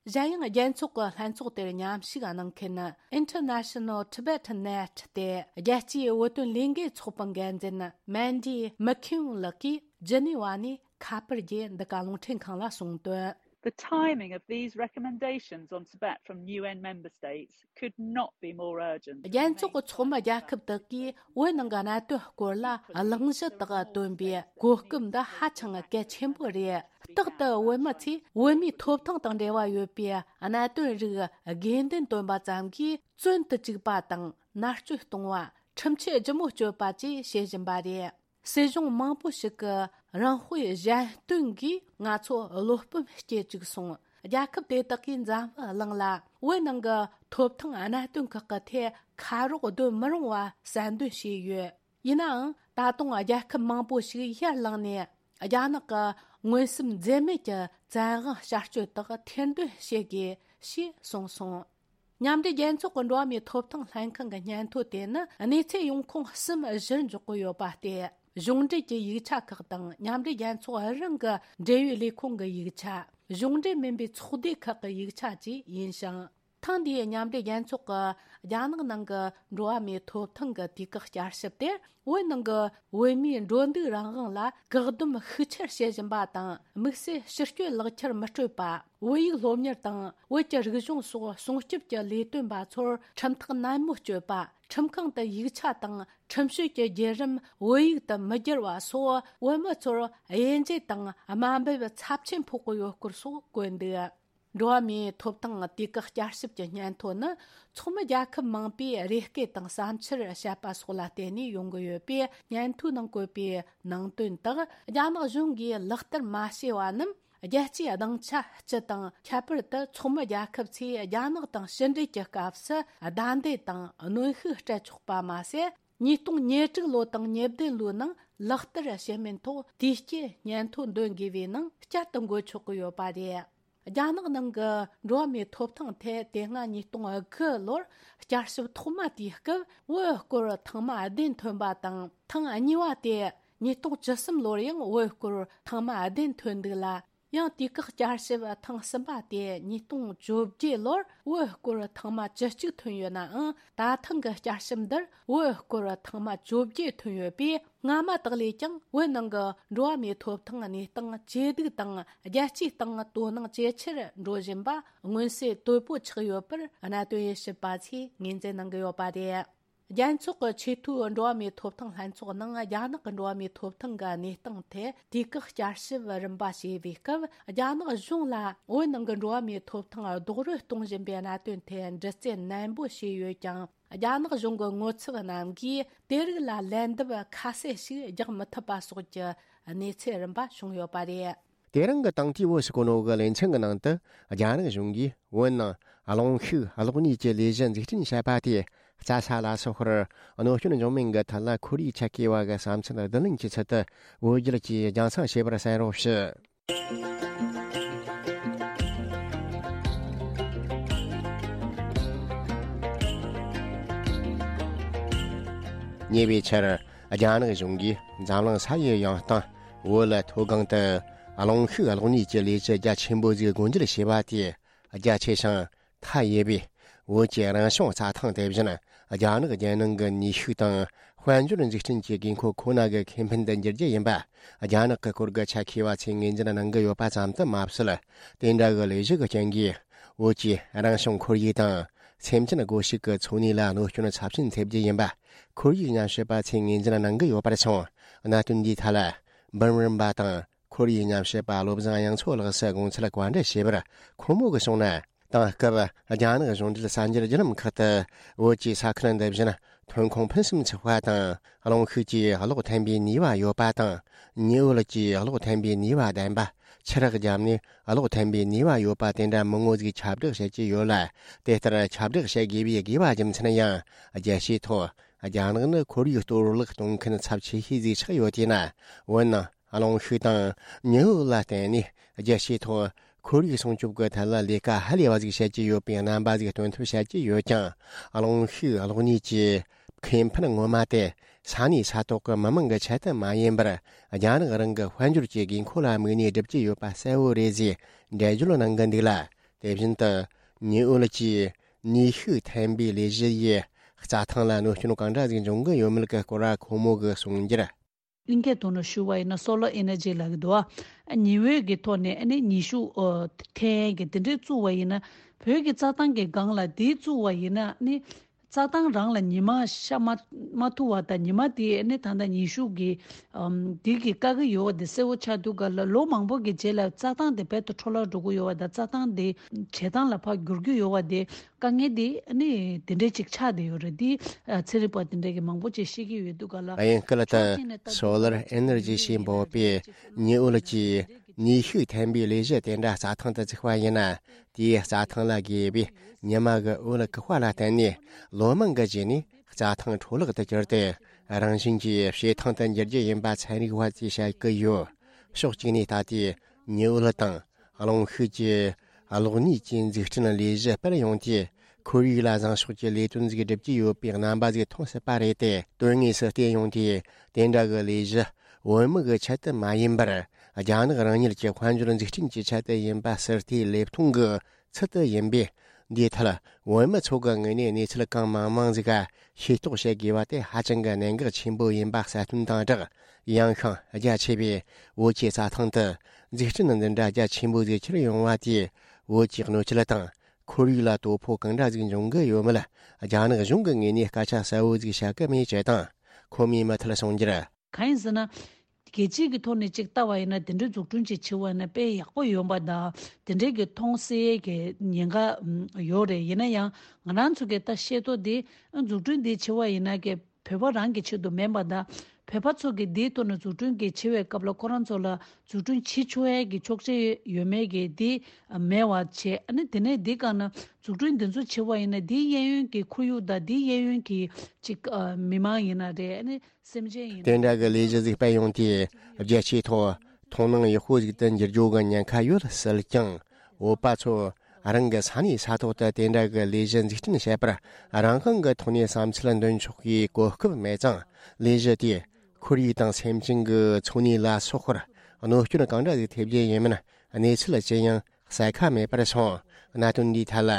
གཞན་ཡང་རྒྱལ་ཚོགས་ཀྱི་ལྷན་ཚོགས་དེར་མཉམ་ཞུགས་གནང་མཁན་International Tibetan Net སྟེ་རྒྱལ་སྤྱིའི་བོད་དོན་ལས་འགུལ་ཚོགས་པའི་འགན་འཛིན་Mandy McKeown ལགས་ཀྱིས་ཇི་ནི་ཝ་ནས་ཁ་པར་གྱི་འདི་ག་རླུང་འཕྲིན་ཁང་ལ་གསུངས་དོན། The timing of these recommendations on Tibet from U N member states could not be more urgent. རྒྱལ་ཚོགས་ཀྱི་ཚོགས་མི་རྒྱལ་ཁབ་དག་གིས་བོད་ནང་གི་གནད་དོན་སྐོར་ལ་གླེང་གཞི་དག་བཏོན་པའི་གོ་སྐབས་འདི་ཧ་ཅང་གལ་ཆེན་པོ་རེད། རྟག་ཏུ་བོད་མི་ཚོས་བོད་མིའི་ཐོབ་ཐང་དང་འབྲེལ་བ་ཡོད་པའི་གནད་དོན་རིགས་དགོས་འདུན་བཏོན་པ་ཙམ་གྱིས་བཙོན་དུ་བཅུག་པ་དང་མནར་གཅོད་གཏོང་བ། ཁྲིམས་ཆད་ལྗིད་མོ་གཅོད་པ་བཅས་བྱེད་བཞིན་པ་རེད། སྲིད་གཞུང་མང་པོ་ཞིག་གི་རང་དཔེ་གཞན་སྟོན་གྱིས་ང་ཚོ་བློ་སྤོབས་སྐྱེ་བཅུག་སོང་། རྒྱལ་ཁབ་དེ་དག་གིས་འཛམ་བུ་གླིང་ལ་བོད་ནང་གི་ཐོབ་ཐང་གནད་དོན་ཁག་གི་ཐད་ཁ་རོག་སྡོད་མི་རུང་བ་གསལ་འདོན་བྱས་ཡོད། ཡིན་ནའང་ད་དུང་རྒྱལ་ཁབ་མང་པོ་ཞིག་ཡར་ལངས་ནས་རྒྱ་ནག་གི་མངོན་སུམ་འཛེམ་མེད་ཀྱི་བཙན་དབང་བསྐྱར་གཅོད་དག་ཐེར་འདོན་བྱེད་དགོས་ཞེས་གསུངས་སོང་། མཉམ་འབྲེལ་རྒྱལ་ཚོགས་ཀྱི་འགྲོ་བ་མིའི་ཐོབ་ཐང་ལྷན་ཁང་གི་སྙན་ཐོ་དེ་ནི་གནས་ཚད་ཡོང་ཁུངས་གསུམ་བཞིར་འཇོག་གི་ཡོད་པ་སྟེ། གཞུང་འབྲེལ་གྱི་ཡིག་ཆ་ཁག་དང་མཉམ་འབྲེལ་རྒྱལ་ཚོགས་རང་གི་འབྲེལ་ཡོད་ལས་ཁུངས་ཀྱི་ཡིག་ཆ། གཞུང་འབྲེལ་མིན་པའི་ཚོགས་སྡེ་ཁག་གི་ཡིག་ཆ་བཅས་ཡིན་ཞིང་། ཐེངས་འདིའི་མཉམ་འབྲེལ་རྒྱལ་ཚོགས་ཀྱི་རྒྱ་ནག་ནང་གི་འགྲོ་བ་མིའི་ཐོབ་ཐང་གི་དུས་བཀག་བསྐྱར་ཞིབ་དེར། བོད་ནང་གི་བོད་མིའི་འགྲོ་འདུག་རང་དབང་ལ་བཀག་སྡོམ་ཤུགས་ཆེར་བྱེད་བཞིན་པ་དང་། དམིགས་བསལ་ཕྱི་སྐྱོད་ལག་ཁྱེར་མི་སྤྲོད་པ། བོད་ཡིག་སློབ་གཉེར་དང་བོད་ཀྱི་རིག་གཞུང་སོགས་སྲུང་སྐྱོབ་ཀྱི་ལས་དོན་པ་ཚོར་ཁྲིམས་ཐག་ནན་མོ་གཅོད་པ། ཁྲིམས་ཁང་དུ་ཡིག་ཆ་དང་ཁྲིམས་གཅོད་ཀྱི་བརྒྱུད་རིམ་བོད་ཡིག་ཏུ་མི་བསྒྱུར་བ་སོགས། བོད་མི་ཚོར་དབྱེ་འབྱེད་དང་དམའ་འབེབས་ཚབས་ཆེན་ཕོག་གི་ཡོད་སྐོར་སོགས་བཀོད་འདུག། འགྲོ་བ་མིའི་ཐོབ་ཐང་དུས་བཀག་བསྐྱར་ཞིབ་ཀྱི་སྙན་ཐོ་ནི། ཚོགས་མི་རྒྱལ་ཁབ་མང་པོས་རེ་སྐུལ་དང་བསམ་འཆར་བཤད་པ་སོགས་ལ་བརྟེན་ནས་ཡོང་གི་ཡོད་པས། སྙན་ཐོའི་ནང་བཀོད་པའི་ནང་དོན་དག་རྒྱ་ནག་གཞུང་གིས་ལག་བསྟར་མ་བྱས་པ་རྣམས། རྒྱལ་སྤྱིའི་སྡིངས་ཆ་སྤྱི་དང་། ཁྱད་པར་དུ་ཚོགས་མི་རྒྱལ་ཁབ་ཚོས་རྒྱ་ནག་དང་ཕྱི་འབྲེལ་གྱི་སྐབས་སུ་བདའ་འདེད་དང་གནོན་ཤུགས་སྤྲད་ཆོག་པ་མ་ཟད། ཉིས་སྟོང་ཉེར་དྲུག་ལོ་དང་ཉེར་བདུན་ལོའི་ནང་ལག་བསྟར་བྱེད་མིན་ཐོག་དུས་བསྐྱོད་སྙན་ཐོ་འདོན་དགོས་པའི་ནང་བསྐྱར་དུ་འགོད་ཆོག་གི་ཡོད་པ་རེད། རྒྱ་ནག་ནང་གི་འགྲོ་བ་མིའི་ཐོབ་ཐང་ཐད་དེ་སྔ་ཉིས་སྟོང་དགུ་ལོར་བསྐྱར་ཞིབ་ཐོག་མ་དེའི་སྐབས་བོད་སྐོར་ཐེངས་མ་བདུན་ཐོན་པ་དང་། ཐེངས་གཉིས་པ་དེ་ཉིས་སྟོང་བཅུ་གསུམ་ལོར་ཡང་བོད་སྐོར་ཐེངས་མ་བདུན་ཐོན་འདུག་ལ། ཡང་དུས་བཀག་བསྐྱར་ཞིབ་ཐེངས་གསུམ་པ་དེ་ཉིས་སྟོང་བཅོ་བརྒྱད་ལོར་བོད་སྐོར་ཐེངས་མ་བཅུ་གཅིག་ཐོན་ཡོད་ནའང་། ད་ཐེངས་ཀྱི་བསྐྱར་ཞིབ་འདིར་བོད་སྐོར་ཐེངས་མ་བཅོ་བརྒྱད་ཐོན་ཡོད་པས། སྔ་མ་དག་ལས་ཀྱང་བོད་ནང་གི་འགྲོ་བ་མིའི་ཐོབ་ཐང་གནས་སྟངས་ཇེ་སྡུག་དང་། རྒྱལ་སྤྱིའི་སྟེང་དོ་སྣང་ཇེ་ཆེར་འགྲོ་བཞིན་པ་མངོན་གསལ་དོད་པོ་ཆགས་ཡོད་པར་གནད་དོན་ཡིད་ཞིབ་པ་ཚོས་ངོས་འཛིན་གནང་གི་ཡོད་པ་རེད། རྒྱལ་ཚོགས་ཀྱི་ཆེས་མཐོའི་འགྲོ་བ་མིའི་ཐོབ་ཐང་ལྷན་ཚོགས་ནང་རྒྱ་ནག་གི་འགྲོ་བ་མིའི་ཐོབ་ཐང་གི་གནས་སྟངས་ཐད་དུས་བཀག་བསྐྱར་ཞིབ་རིམ་པ་བྱས་པའི་སྐབས། རྒྱ་ནག་གཞུང་ལ་བོད་ནང་གི་འགྲོ་བ་མིའི་ཐོབ་ཐང་རྡོག་རོལ་གཏོང་བཞིན་པའི་གནད་དོན་ཐད་འདྲི་རྩད་ནན་པོ་བྱས་ཡོད་ཀྱང་། རྒྱ་ནག་གཞུང་གི་ངོ་ཚབ་རྣམས་ཀྱིས་དེ་རིགས་ལ་ལན་འདེབས་ཁ་གསལ་ཞིག་རྒྱག་མི་ཐུབ་པ་སོགས་ཀྱི་གནས་ཚུལ་རིམ་པ་བྱུང་ཡོད་པ་རེད། དེ་རིང་གི་དང་ཐོག་བོད་སྐུ་ནོ་གི་ལེ་ཚན་གྱི་ནང་དུ། རྒྱ་ནག་གཞུང་གིས་བོད་ནང་གླེང་ཤུགས་གློག་བརྙན་གྱི་ལས་གཞི་འཛུགས་སྐྲུན་བྱས་པ་དེ་རྩ་ས་ལ་སོགས་པར་གནོད་སྐྱོན་འབྱུང་མིན་གྱི་ཐད་ལ་ཁོར་ཡུག་ཆེད་མཁས་པ་གི་བསམ་ཚུལ་བསྡུ་ལེན་གྱི་ཚུལ་དུ་བོད་རྒྱལ་གྱིས་རྒྱང་སྲིང་བྱས་པར་གསན་རོགས་ཞུ། ཉེ་བའི་ཆར། རྒྱ་ནག་གཞུང་གིས་འཛམ་གླིང་ས་ཡི་ཡང་སྟེང་བོད་ལ་མཐོ་སྒང་དུ་གླེང་ཤུགས་གློག་བརྙན་གྱི་ལས་གཞི་རྒྱ་ཆེན་པོ་ཞིག་སྒོ་འབྱེད་བྱས་པ་དེ་རྒྱ་ཆེ་ཞིང་མཐའ་ཡས་པའི་བོད་ཀྱི་རང་བྱུང་རྩྭ་ཐང་དེ་བཞིན་རྒྱ་ནག་རྒྱལ་ནང་གི་ནུས་ཤུགས་དང་དཔལ་འབྱོར་འཛུགས་སྐྲུན་གྱི་དགོས་མཁོ་ཁོ་ན་གི་ཁེ་ཕན་དུ་འགྱུར་རྒྱུ་ཡིན་པ། རྒྱ་ནག་གི་སྐོར་གྱི་ཆ་མཁས་པ་ཚོས་ངོས་འཛིན་གནང་གི་ཡོད་པ་ཙམ་དུ་མ་ཟད། དེ་འདྲ་གི་ལས་གཞི་གི་རྐྱེན་གྱིས་བོད་ཀྱི་རང་བྱུང་ཁོར་ཡུག་དང་། སེམས་ཅན་སྒོ་ཕྱུགས་ཀྱི་འཚོ་གནས་ལ་གནོད་སྐྱོན་ཚབས་ཆེན་ཐེབས་རྒྱུ་ཡིན་པ། ཁོར་ཡུག་ཉམས་ཞིབ་པ་ཚོས་ངོས་འཛིན་གནང་གི་ཡོད་པར་སོང་། གནད་དོན་འདིའི་ཐད་ལ། འབུམ་རམས་པ་དང་ཁོར་ཡུག་ཉམས་ཞིབ་པ་བློ་བཟང་དབྱངས་མཚོ་ལགས་སུ་དགོངས་ཚུལ་བཀའ་འདྲི་བྱས་པར། ཁོང་མོ་གིས་གསུངས་ན། དེང་སྐབས་རྒྱ་ནག་གཞུང་འབྲེལ་གསར་འགྱུར་བརྒྱུད་ལམ་ཁག་ཏུ་བོད་ཀྱི་ས་ཁུལ་འདི་བཞིན་ཐོན་ཁུངས་ཕུན་སུམ་ཚོགས་པ་དང་། གླེང་ཤུགས་ཀྱིས་གློག་འཐེན་པའི་ནུས་པ་ཡོད་པ་དང་། ཉི་འོད་ཀྱིས་གློག་འཐེན་པའི་ནུས་པ་ལྡན་པ། ཆུ་རགས་བརྒྱབ་ནས་གློག་འཐེན་པའི་ནུས་པ་ཡོད་པ་དེ་འདྲ་མང་བོ་ཞིག་ཁྱབ་བསྒྲགས་བྱེད་ཀྱི་ཡོད་ལ། དེ་ལྟར་ཁྱབ་བསྒྲགས་བྱེད་དགོས་པའི་དགོས་པ་རྒྱུ་མཚན་ཡང་། རྒྱལ་སྤྱིའི་ཐོག་རྒྱ་ནག་ནི་ཁོར་ཡུག་གཏོར་བརླག་གཏོང་མཁན་ཚབས་ཆེ་ཤོས་ཟིག་ཆགས་ཡོད་དུས་ན། འོན་ནང་གླེང་ཤུགས་དང་ཉི་འོད་ལ་བརྟེན་ནས་རྒྱལ་སྤྱིའི་ཐོག་ཁོར་ཡུག་སྲུང་སྐྱོབ་ཀྱི་ཐད་ལ་ལས་ཀ་ཧ་ལས་པ་ཟིག་བྱེད་ཀྱི་ཡོད་པའི་རྣམ་པ་ཟིག་སྟོན་ཐབས་བྱེད་ཀྱི་ཡོད་ཀྱང་། གླེང་ཤུགས་གློག་བརྙན་གྱི་ཁེ་ཕན་ངོ་མ་དེ་ས་གནས་ས་ཐོག་གི་མི་མང་གི་ཆེད་དུ་མ་ཡིན་པར། རྒྱ་ནག་རང་གི་དཔལ་འབྱོར་གྱི་དགོས་མཁོ་ལ་དམིགས་ནས་སྒྲུབ་ཀྱི་ཡོད་པ་གསལ་བོ་རེད་ཟེར་འགྲེལ་བརྗོད་གནང་གི་འདུག་ལ། དེ་བཞིན་དུ་ཉི་འོད་ཀྱིས་ནུས་ཤུགས་འཐེན་པའི་ལས་གཞི་ཡིས་རྩྭ་ཐང་ལ་གནོད་སྐྱོན་གང་འདྲ་ཟིག་འབྱུང་གི་ཡོད་མེད་ཀྱི་སྐོར་ཁོང་མོ་གིས་གསུངས་རྒྱུར། གླིང་ཁའི་ཐོག་ནས་ཞུ་བ་ཡིན་ན་སོ་ལར་ཨེ་ནར་ཇི་ལབ་ཀྱི་འདུག་ཨ། ཉི་འོད་ཀྱི་ཐོག་ནས་ཨ་ནི་ནུས་ཤུགས་ཨོ་འཐེན་གྱི་དེ་འདྲའི་བཙུགས་པ་ཡིན་ན། བོད་ཀྱི་རྩྭ་ཐང་གི་སྒང་ལ་དེ་བཙུགས་པ་ཡིན་ན་ཨ་ནི་རྩྭ་ཐང་རང་ལ་ཉི་མ་ཤར་མ་མ་ཐུབ་པ་དང་། ཉི་མ་དེ་ཨ་ནི་ད་ལྟ་ནུས་ཤུགས་ཀྱི་ཨམ་དེ་གི་བཀག་གི་ཡོད་པ་དེ་གསལ་བོ་ཆགས་དུས་སྒང་ལ། ལོ་མང་པོ་གི་རྗེས་ལ་རྩྭ་ཐང་དེ་རྦད་དེ་འཕྲོ་བརླག་འགྲོ་གི་ཡོད་པ་དང་། རྩྭ་ཐང་དེ་བྱེ་ཐང་ལ་ཕར་འགྱུར་གྱི་ཡོད་པ་དེ། དཀའ་ངལ་དེ་ནི་དེ་འདྲའི་ཅིག་ཆགས་བསྡད་ཡོད་རེད། དེ་ཚན་རིག་པ་དེ་འདྲ་གི་མང་པོ་ཅིག་བཤད་ཀྱི་ཡོད་དུས་སྒང་ལ། དབྱིན་སྐད་ཕྱོགས་གཅིག་ནས་ལྟ་དུས་སོ་ལར་ཨེ་ནར་ཇི་ཞེས་འབོད་པའི་ཉི་འོད་ཀྱིས་ནུས་ཤུགས་འཐེན་པའི་ལས་གཞི་དེ་འདྲ་རྩྭ་ཐང་དུ་བཙུགས་པ་ཡིན་ན། དེའི་རྩྭ་ཐང་ལ་དགོས་པའི་ཉི་མ་གི་འོད་བཀག་པ་ལ་བརྟེན་ནས་ལོ་མང་གི་རྗེས་ནས་རྩྭ་ཐང་འཕྲོ་བརླག་ཏུ་གྱུར་ཏེ། རང་བཞིན་གྱིས་བྱེ་ཐང་དུ་འགྱུར་རྒྱུ་ཡིན་པ་ཚན་རིག་པ་ཚོས་བཤད་ཀྱི་ཡོད། ཕྱོགས་གཅིག་ནས་ལྟ་དུས་ཉི་འོད་དང་། གླེང་ཤུགས་ཀྱི་གློག་བརྙན་གྱི་འཛུགས་སྐྲུན་ལས་གཞི་སྤེལ་ཡོང་དུས། ཁོར་ཡུག་ལ་བཟང་ཕྱོགས་ཀྱི་ལས་དོན་ཟིག་སྒྲུབ་ཀྱི་ཡོད་པའི་རྣམ་པ་ཟིག་མཐོང་སྲིད་པ་རེད་དེ། དོན་དངོས་སུ་བལྟས་ཡོང་དུས། དེ་འདྲ་གི་ལས་གཞི་བོད་མི་གི་ཆེད་དུ་མ་ཡིན་པར། རྒྱ་ནག་རང་ཉིད་ཀྱི་དཔལ་འབྱོར་འཛུགས་སྐྲུན་གྱི་ཆེད་དུ་ཡིན་པ་ཟུར་བལྟས་ལེབ་མཐོང་གི་ཚུལ་དུ་ཡིན་པས། འདིའི་ཐད་བོད་མི་ཚོ་གི་ངོས་ནས་གནས་ཚུལ་གང་མང་མང་ཟིག་ཤེས་རྟོགས་བྱེད་དགོས་པ་དེ་ཧ་ཅང་གི་གནད་འགག་ཆེན་པོ་ཡིན་པ་གསལ་སྟོན་དང་སྦྲགས། ཡང་ཤིང་རྒྱ་ཆེ་བའི་བོད་ཀྱི་རྩྭ་ཐང་དུ་འཛུགས་སྐྲུན་འདི་འདྲ་རྒྱ་ཆེན་པོ་ཟིག་ཁྱེར་ཡོང་བ་དེས། བོད་ཀྱི་གནོད་སྐྱེལ་དང་ཁོར་ཡུག་ལ་དོ་ཕོག་གང་འདྲ་ཟིག་འབྱུང་གི་ཡོད་མེད། རྒྱ་ནག་གཞུང་གི་ངོས་ནས་སྐད་ཆ་གསལ་བོ་ཟིག་བཤད་གི་མེད་ཅེས་དང་། ཁོ་མོས་མུ་མཐུད་གསུངས་རྒྱུར། གང་ཡིན་ཟེར་ན། རྒྱལ་སྤྱི་གི་ཐོག་ནས་ཅིག་ལྟ་བ་ཡིན་ན། དེ་འདྲའི་འཛུགས་སྐྲུན་ཅིག་བྱེད་པ་ཡིན་ན་དཔེ་ཡག་པོ་ཡོང་པ་དང་། དེ་འདྲའི་གི་མཐོང་སའི་གི་ཉེན་ཁ་ཡོད་རེད། ཡིན་ན་ཡང་ང་རང་ཚོ་གི་ད་ཤེས་རྟོགས་དེ་འཛུགས་སྐྲུན་དེ་བྱེད་པ་ཡིན་ན་གི་བོད་པ་རང་གི་ཆེད་དུ་མིན་པ་དང་། བོད་པ་ཚོ་གི་དེའི་ཐོག་ནས་འཛུགས་སྐྲུན་གི་བྱེད་པའི་སྐབས་ལ་ཁོ་རང་ཚོ་ལ་འཛུགས་སྐྲུན་བྱེད་ཆོག་ཡས་གི་ཆོག་མཆན་ཡོད་མེད་གི་དེ་མེད་པ་བྱས། ཨ་ནི་དེ་ནས་དེ་ག་ན་འཛུགས་སྐྲུན་དེ་ཚོ་བྱེད་པ་ཡིན་ན། དེའི་གཡས་གཡོན་གི་ཁོར་ཡུག་དང་། དེའི་གཡས་གཡོན་གི་ཅིག་མི་མང་ཡིན་ན་རེད། ཨ་ནི། སེམས་ཅན་ཡིན་དེ་འདྲ་གི་ལས་གཞི་ཟིག་སྤེལ་ཡོང་དུས། རྒྱལ་སྤྱིའི་ཐོག་མཐོང་སྣང་ཡག་པོ་ཟིག་ཏུ་འགྱུར་རྒྱུ་གི་ཉེན་ཁ་ཡོད་སྲིད་ཀྱང་། བོད་པ་ཚོ་རང་གི་ས་གནས་ས་ཐོག་ཏུ་དེ་འདྲ་གི་ལས་གཞི་འཛུགས་སྐྲུན་བྱེད་པར་རང་དབང་གི་ཐོག་ནས་བསམ་ཚུལ་འདོན་ཆོག་གི་གོ་སྐབས་མེད་ཙང་། ལས་གཞི་དེས་ཁོར་ཡུག་དང་སེམས་ཅན་གྱི་འཚོ་གནས་ལ་སོགས་པར་གནོད་སྐྱོན་གང་འདྲ་ཟིག་ཐེབས་རྒྱུ་ཡིན་མིན་གནས་ཚུལ་ཅི་ཡང་གསལ་ཁ་མེད་པར་སོང་། གནད་དོན་འདིའི་ཐད་ལ་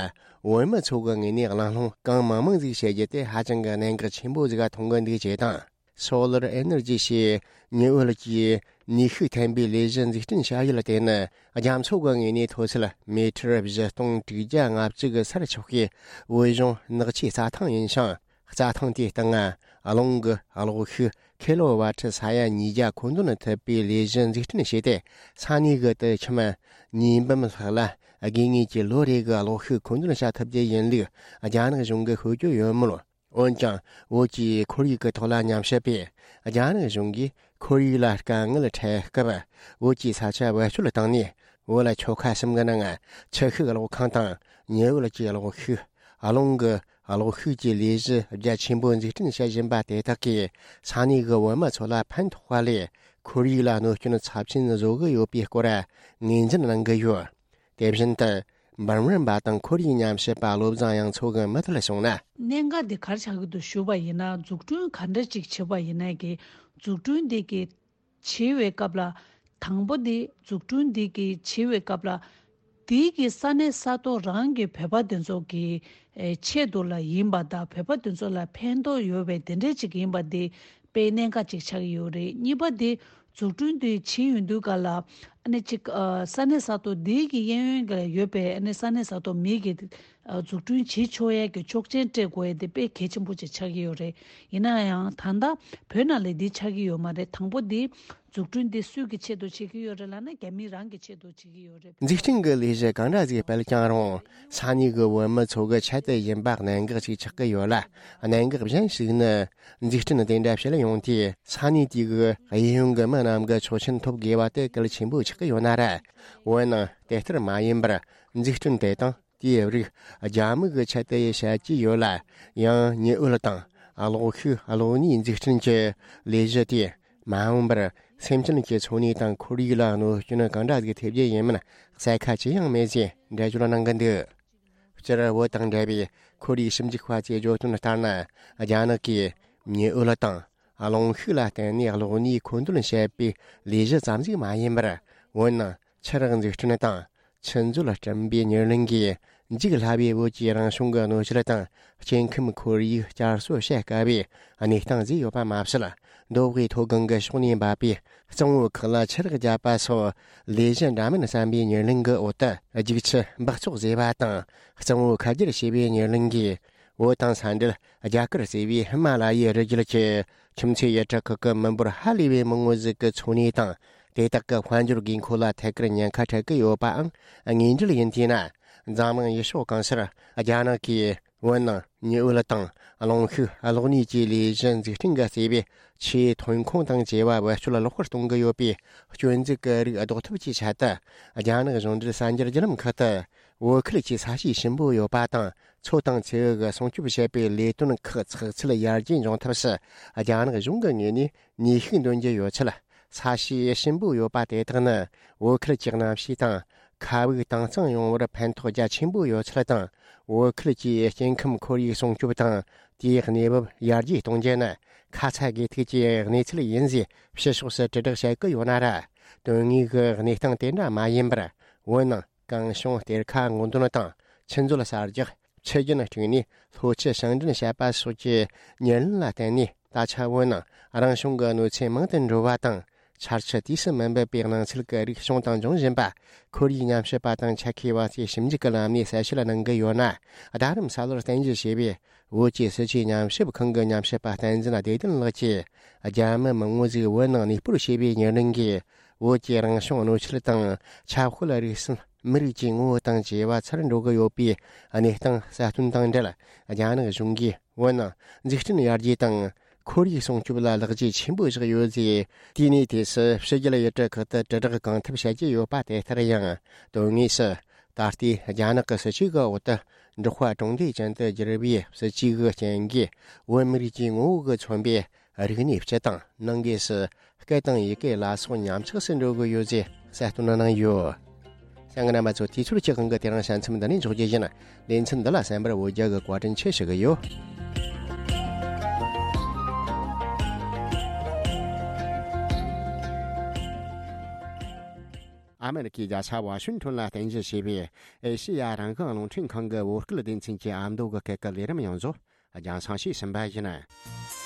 བོད་མི་ཚོ་གི་ངོས་ནས་གླེང་སློང་གང་མང་མང་ཟིག་བྱེད་རྒྱུ་དེ་ཧ་ཅང་གི་གནད་འགག་ཆེན་པོ་ཟིག་ག་མཐོང་གི་འདུག་ཅེས་དང་། སོ་ལར་ཨེ་ནར་ཇི་ཞེས་ཉི་འོད་ཀྱི་ནུས་ཤུགས་འཐེན་པའི་ལས་གཞི་འཛུགས་སྐྲུན་བྱ་ཡུལ་དེ་ནི། རྒྱ་མཚོ་གི་ངོས་ནས་མཐོ་ཚད་མི་ཊར་བཞི་སྟོང་དྲུག་བརྒྱ་ལྔ་བཅུ་གི་སར་ཆགས་པའི་བོད་གཞུང་ནགས་ཆུའི་རྩྭ་ཐང་ཡིན་ཞིང་། རྩྭ་ཐང་དེའི་སྟེང་རླུང་གི་གློག་ཤུགས་ཁི་ལོ་ཝ་ཊི་ས་ཡ་ཉིས་བརྒྱ་མཁོ་འདོན་ཐུབ་པའི་ལས་གཞི་འཛུགས་སྐྲུན་བྱས་ཏེ། ས་གནས་ཀྱི་དུད་ཁྱིམ་ཉིས་འབུམ་ལྷག་ལ་དགོས་ངེས་ཀྱི་ལོ་རེ་གི་གློག་ཤུགས་མཁོ་འདོན་བྱ་ཐུབ་རྒྱུ་ཡིན་ལུགས་རྒྱ་ནག་གཞུང་གིས་ཤོད་ཀྱི་ཡོད་མོད། འོན་ཀྱང་བོད་ཀྱི་ཁོར་ཡུག་གི་ཐོག་ལ་ཉམས་ཞིབ་པས། རྒྱ་ནག་གཞུང་གིས་ཁོར་ཡུག་ལ་དཀའ་ངལ་འཕྲད་སྐབས། བོད་ཀྱི་ས་ཆ་བེད་སྤྱོད་བཏང་ནས། བོད་ཆོལ་ཁ་གསུམ་གྱི་ནང་ཆུ་ཤུགས་གློག་ཁང་དང་ཉི་འོད་ཀྱི་གློག་ཤུགས། རླུང་གི་གློག་ཤུགས་ཀྱི་ལས་གཞི་རྒྱ་ཆེན་པོ་འཛུགས་སྐྲུན་བྱེད་བཞིན་པ་དེ་དག་གིས། ས་གནས་ཀྱི་བོད་མི་ཚོ་ལ་ཕན་ཐོགས་པ་ལས། ཁོར་ཡུག་ལ་གནོད་སྐྱོན་ཚབས་ཆེན་བཟོ་གི་ཡོད་པའི་སྐོར་ངོས་འཛིན་གནང་གི་ཡོད། དེ་བཞིན་དུ། འབུམ་རམས་པ་དང་ཁོར་ཡུག་ཉམས་ཞིབ་པ་བློ་བཟང་དབྱངས་མཚོ་གིས་མུ་མཐུད་གསུངས་ན། གནད་འགག་འདི་ག་རེ་ཆགས་ཀྱི་འདུག་ཞུས་པ་ཡིན་ན། འཛུགས་སྐྲུན་ག་འདྲ་ཅིག་བྱེད་པ་ཡིན་ན་གི། འཛུགས་སྐྲུན་འདི་གི་བྱེད་པའི་སྐབས་ལ། དང་པོ་འདི་འཛུགས་སྐྲུན་འདི་གི་བྱེད་པའི་སྐབས་ལ། དེའི་གི་ས་གནས་ས་ཐོག་རང་གི་བོད་པ་དེ་ཚོ་གི་ཨེ་ཆེད་དུ་ལ་ཡིན་པ་དང་། བོད་པ་དེ་ཚོ་ལ་ཕན་ཐོགས་ཡོད་པའི་དེ་འདྲས་ཅིག་ཡིན་པ་དེ་དཔེ་གནད་འགག་ཅིག་ཆགས་ཀྱི་ཡོད་རེད། གཉིས་པ་དེ་འཛུགས་སྐྲུན་དེ་བྱེད་ཡོང་དུས་ག་ལ། ཨ་ནི་ཅིག་ཨ་ས་གནས་ས་ཐོག་དེའི་གི་གཡས་གཡོན་ག་ཡོད་པའི་ཨ་ནི་ས་གནས་ས་ཐོག་མི་གི་ཨ་འཛུགས་སྐྲུན་བྱེད་ཆོག་ཡས་ཀྱི་ཆོག་མཆན་སྤྲད་དགོས་ཡས་དེ་དཔེ་གལ་ཆེན་པོ་ཅིག་ཆགས་ཀྱི་ཡོད་རེད། ཡིན་ན་ཡང་ད་ལྟ་བོད་ནང་ལ་འདི་ཆགས་ཀྱི་ཡོད་མ་རེད། དང་པོ་འདི་འཛུགས་སྐྲུན་འདི་སུའི་གི་ཆེད་དུ་བྱེད་ཀྱི་ཡོད་རེད་ལབ་ན། རྒྱ་མི་རང་གི་ཆེད་དུ་བྱེད་ཀྱི་ཡོད་རེད། འཛུགས་སྐྲུན་གྱི་ལས་གཞི་གང་འདྲ་ཞིག་སྤེལ་ཀྱང་རུང་། ས་གནས་ཀྱི་བོད་མི་ཚོ་གི་ཆེད་དུ་ཡིན་པ་གནད་འགག་ཅིག་ཆགས་ཀྱི་ཡོད་ལ། གནད་འགག་གཞན་ཞིག་ནི། འཛུགས་སྐྲུན་དེ་འདྲ་བྱེད་ཡོང་དུས། ས་གནས་དེ་གི་གཡས་གཡོན་གྱི་མི་རྣམས་ཀྱི་ཆོག་མཆན་ཐོབ་དགོས་པ་དེ་གལ་ཆེན་པོ་ཆགས་ཀྱི་ཡོད་ན་ར། འོན་ནང་དེ་ལྟར་མ་ཡིན་པར། འཛུགས་སྐྲུན་དེ་དང་དེའི་རིགས་རྒྱ་མི་གི་ཆེད་དུ་བྱེད་ཀྱི་ཡོད་ལ། ཡང་ཉི་འོད་དང་གློག་ཤུགས་གློག་བརྙན་འཛུགས་སྐྲུན་གྱི་ལས་གཞི་དེ། མ་འོངས་པར་སེམས་ཅན་གྱི་འཚོ་གནས་དང་ཁོར་ཡུག་ལ་གནོད་སྐྱོན་གང་འདྲ་ཞིག་ཐེབས་རྒྱུ་ཡིན་མིན་གསལ་ཁ་ཅི་ཡང་མེད་ཅེས་འགྲེལ་བརྗོད་གནང་གི་འདུག། སྤྱིར་བོད་དང་འབྲེལ་བའི་ཁོར་ཡུག་ཞིབ་འཇུག་པ་ཚོས་བརྗོད་དོན་ལྟར་ན། རྒྱ་ནག་གིས་ཉི་འོད་དང་རླུང་ཤུགས་ལ་བརྟེན་ནས་གློག་བརྙན་མཁོ་འདོན་བྱེད་པའི་ལས་གཞི་ཙམ་ཞིག་མ་ཡིན་པར། འོན་ནང་ཆུ་རགས་འཛུགས་སྐྲུན་དང་། ཆུ་མཛོད་སྐྲུན་པའི་ཉེར་ལེན་གྱིས། འཇིག་སླ་བའི་བོད་ཀྱི་རང་བྱུང་གི་གནོད་སྐྱེལ་དང་། སྐྱེ་ཁམས་ཁོར་ཡུག་བསྐྱར་གསོ་བྱེད་དཀའ་བའི་གནས་སྟངས་བཟོས་ཡོད་པ་མ་ཟད། མདོ་དབུས་མཐོ་སྒང་གི་ཕྱོགས་ནས་འབབ་པའི་གཙང་བོ་ཁག་ལ་ཆུ་རགས་བརྒྱབ་པ་སོགས་ལས་གཞི་འདྲ་མིན་བརྩམས་པའི་ཉེར་ལེན་གྱི་འོག་ཏུ། རྒྱུག་ཆུ་འབག་བཙོག་བཟོས་པ་དང་། གཙང་བོ་ཁ་བསྒྱུར་བྱས་པའི་ཉེར་ལེན་གྱིས། བོད་དང་ས་འབྲེལ་རྒྱ་གར་ཟེར་བའི་ཧི་མ་ལ་ཡའི་རི་རྒྱུད་ཀྱི་ཁྱིམ་མཚེས་ཡུལ་གྲུ་ཁག་གི་མི་འབོར་ཧ་ལས་པའི་མང་བོ་ཟིག་གི་འཚོ་གནས་དང་། དེ་དག་གི་དཔལ་འབྱོར་དགོས་མཁོ་ལ་ཐད་ཀར་ཉེན་ཁ་འཕྲད་ཀྱི་ཡོད་པའང་དངོས་འབྲེལ་ཡིན་དུས་ན། འཛམ་གླིང་ཡུལ་ཕྱོགས་གང་སར་རྒྱ་ནག་གིས་བོད་ནང་ཉི་འོད་དང་རླུང་ཤུགས་གློག་བརྙན་གྱི་ལས་གཞི་འཛུགས་སྐྲུན་གྱི་བརྩེ་བའི་ཆེས་ཐོན་ཁུངས་དང་བཅས་པ་བེད་སྤྱོད་ལོག་པར་གཏོང་གི་ཡོད་པའི་སྐྱོན་འཛུགས་ཀྱི་རིགས་ཟློག་ཐབས་ཀྱི་ཆེད་དུ། རྒྱ་ནག་གཞུང་འབྲེལ་གསར་འགྱུར་བརྒྱུད་ལམ་ཁག་ཏུ། བོད་ཁུལ་གྱི་ས་གཤིས་ཞིམ་པོ་ཡོད་པ་དང་། མཚོ་དང་མཚེའུ་གི་སྲུང་སྐྱོབ་བྱེད་པའི་ལས་དོན་ཁག་ཚགས་ཚུད་ཡར་རྒྱས་འབྱུང་ཐབས་སུ། རྒྱ་ནག་གཞུང་གི་ངོས་ནས་ནུས་ཤུགས་འདོན་གྱི་ཡོད་ཚུལ། ས་གཤིས་ཞིམ་པོ་ཡོད་པ་དེ་དག་ནི། བོད་ཁུལ་གྱི་གནམ་གཤིས་དང་། ཁ་བུག་དྭངས་གཙང་ཡོང་བར་ཕན་ཐོགས་རྒྱ་ཆེན་པོ་ཡོད་ཚུལ་དང་། བོད་ཁུལ་གྱི་སྐྱེ་ཁམས་ཁོར་ཡུག་སྲུང་སྐྱོབ་དང་། དེའི་གནས་བབ་ཡར་རྒྱས་གཏོང་རྒྱུ་ནི། ཁ་ཚ་དགོས་གཏུགས་ཀྱི་གནས་ཚུལ་ཡིན་ཞེས་ཕྱི་ཕྱོགས་སུ་དྲིལ་བསྒྲགས་བྱེད་ཀྱི་ཡོད་ན་ར། དོན་དངོས་ཀྱི་གནས་སྟངས་དེ་འདྲ་མ་ཡིན་པར། བོད་ནང་གངས་གཤོང་གཏེར་ཁ་སྔོག་འདོན་དང་། ཆུ་མཛོད་གསར་རྒྱག་ཆུ་རྒྱུན་དཀྲུགས་ནས་ལྷོ་ཆུ་བྱང་འདྲེན་བྱེད་པ་སོགས་ཀྱི་ཉེར་ལེན་ལ་བརྟེན་ནས། ད་ཆ་བོད་ནང་རང་བྱུང་གི་གནོད་འཚེ་མང་དུ་འགྲོ་བ་དང་། ཆར་ཆུ་དུས་སུ་མི་འབབ་པའི་གནས་ཚུལ་གྱི་རིགས་བྱུང་དང་འབྱུང་བཞིན་པ། ཁོར་ཡུག་ཉམས་ཞིབ་པ་དང་ཆ་ཤས་པ་ཚོས་ཞིབ་འཇུག་གི་ལམ་ནས་གསལ་བཤད་གནང་གི་ཡོད་ན། རྡ་རམ་ས་ལར་རྟེན་གཞི་བྱས་པའི་བོད་ཀྱི་སྲིད་བྱུས་ཉམས་ཞིབ་ཁང་གི་ཉམས་ཞིབ་པ་བསྟན་འཛིན་བདེ་ལྡན་ལགས་ཀྱིས། རྒྱ་མི་མང་བོ་ཟིག་བོད་ནང་གནས་སྤོར་བྱས་པའི་ཉེར་ལེན་གྱིས། བོད་ཀྱི་རང་བྱུང་གནོད་འཚེ་དང་། ཆབ་དཔལ་རིག་གསུམ། མི་རིགས་ཀྱི་ངོ་བོ་དང་བཅས་པ་ཚར་འགྲོ་གི་ཡོད་པའི་གནས་སྟངས་གསལ་སྟོན་དང་འབྲེལ། རྒྱ་ནག་གཞུང་གིས་བོད་ནང་འཛུགས་སྐྲུན་ཡར་རྒྱས་དང་། ཁོར་ཡུག་སྲུང་སྐྱོབ་ལ་ལེགས་སྐྱེས་ཆེན་པོ་བཞག་ཡོད་ཅེས། དེའི་ནས་དུས་སུ་ཕྱི་རྒྱལ་ཡུལ་གྲུ་ཁག་ཏུ་དྲིལ་བསྒྲགས་གང་ཐུབ་བྱ་རྒྱུ་ཡོད་པ་དེ་ལྟར་ཡང་། དོན་དངོས་སུ། ད་ལྟའི་རྒྱ་ནག་གི་སྲིད་བྱུས་ཀྱི་འོག་ཏུ། འབྲོག་པ་གྲོང་སྡེ་ཅན་དུ་བསྒྱུར་བའི་སྲིད་བྱུས་ཀྱི་རྐྱེན་གྱིས། བོད་མི་རིགས་ཀྱི་ངོ་བོ་གིས་མཚོན་པའི་རིག་གནས་སྤྱི་དང་། ནང་སྒོས་སུ་སྐད་དང་ཡི་གེ་ལ་སོགས་ཉམས་ཆག་སུ་འགྲོ་གི་ཡོད་ཅེས་གསལ་སྟོན་གནང་ཡོད། གསན་མཁན་རྣམ་པ་ཚོ། དུས་ཚོད་ཀྱི་དབང་གིས་དེ་རིང་ཞལ་མཚམས་འདི་ནས་འཇོག་རྒྱུ་ཡིན། ལེ་ཚན་འདི་ལ་གསན་པར་འོ་བརྒྱལ་གྱི་བཀའ་དྲིན་ཆེ་ཞུ་གི་ཡོད། ཨ་མེ་རི་ཁའི་རྒྱལ་ས་ཝ་ཤིང་ཊོན་ལ་རྟེན་གཞི་བྱས་པའི་ཨེ་ཤེ་ཡ་རང་དབང་རླུང་འཕྲིན་ཁང་གི་བོད་སྐད་སྡེ་ཚན་གྱི་ཨ་མདོ་གི་སྐད་ཀྱི་ལས་རིམ་ཡོངས་རྫོགས་རྒྱང་སྲིང་ཞུས་ཟིན་པ་ཡིན།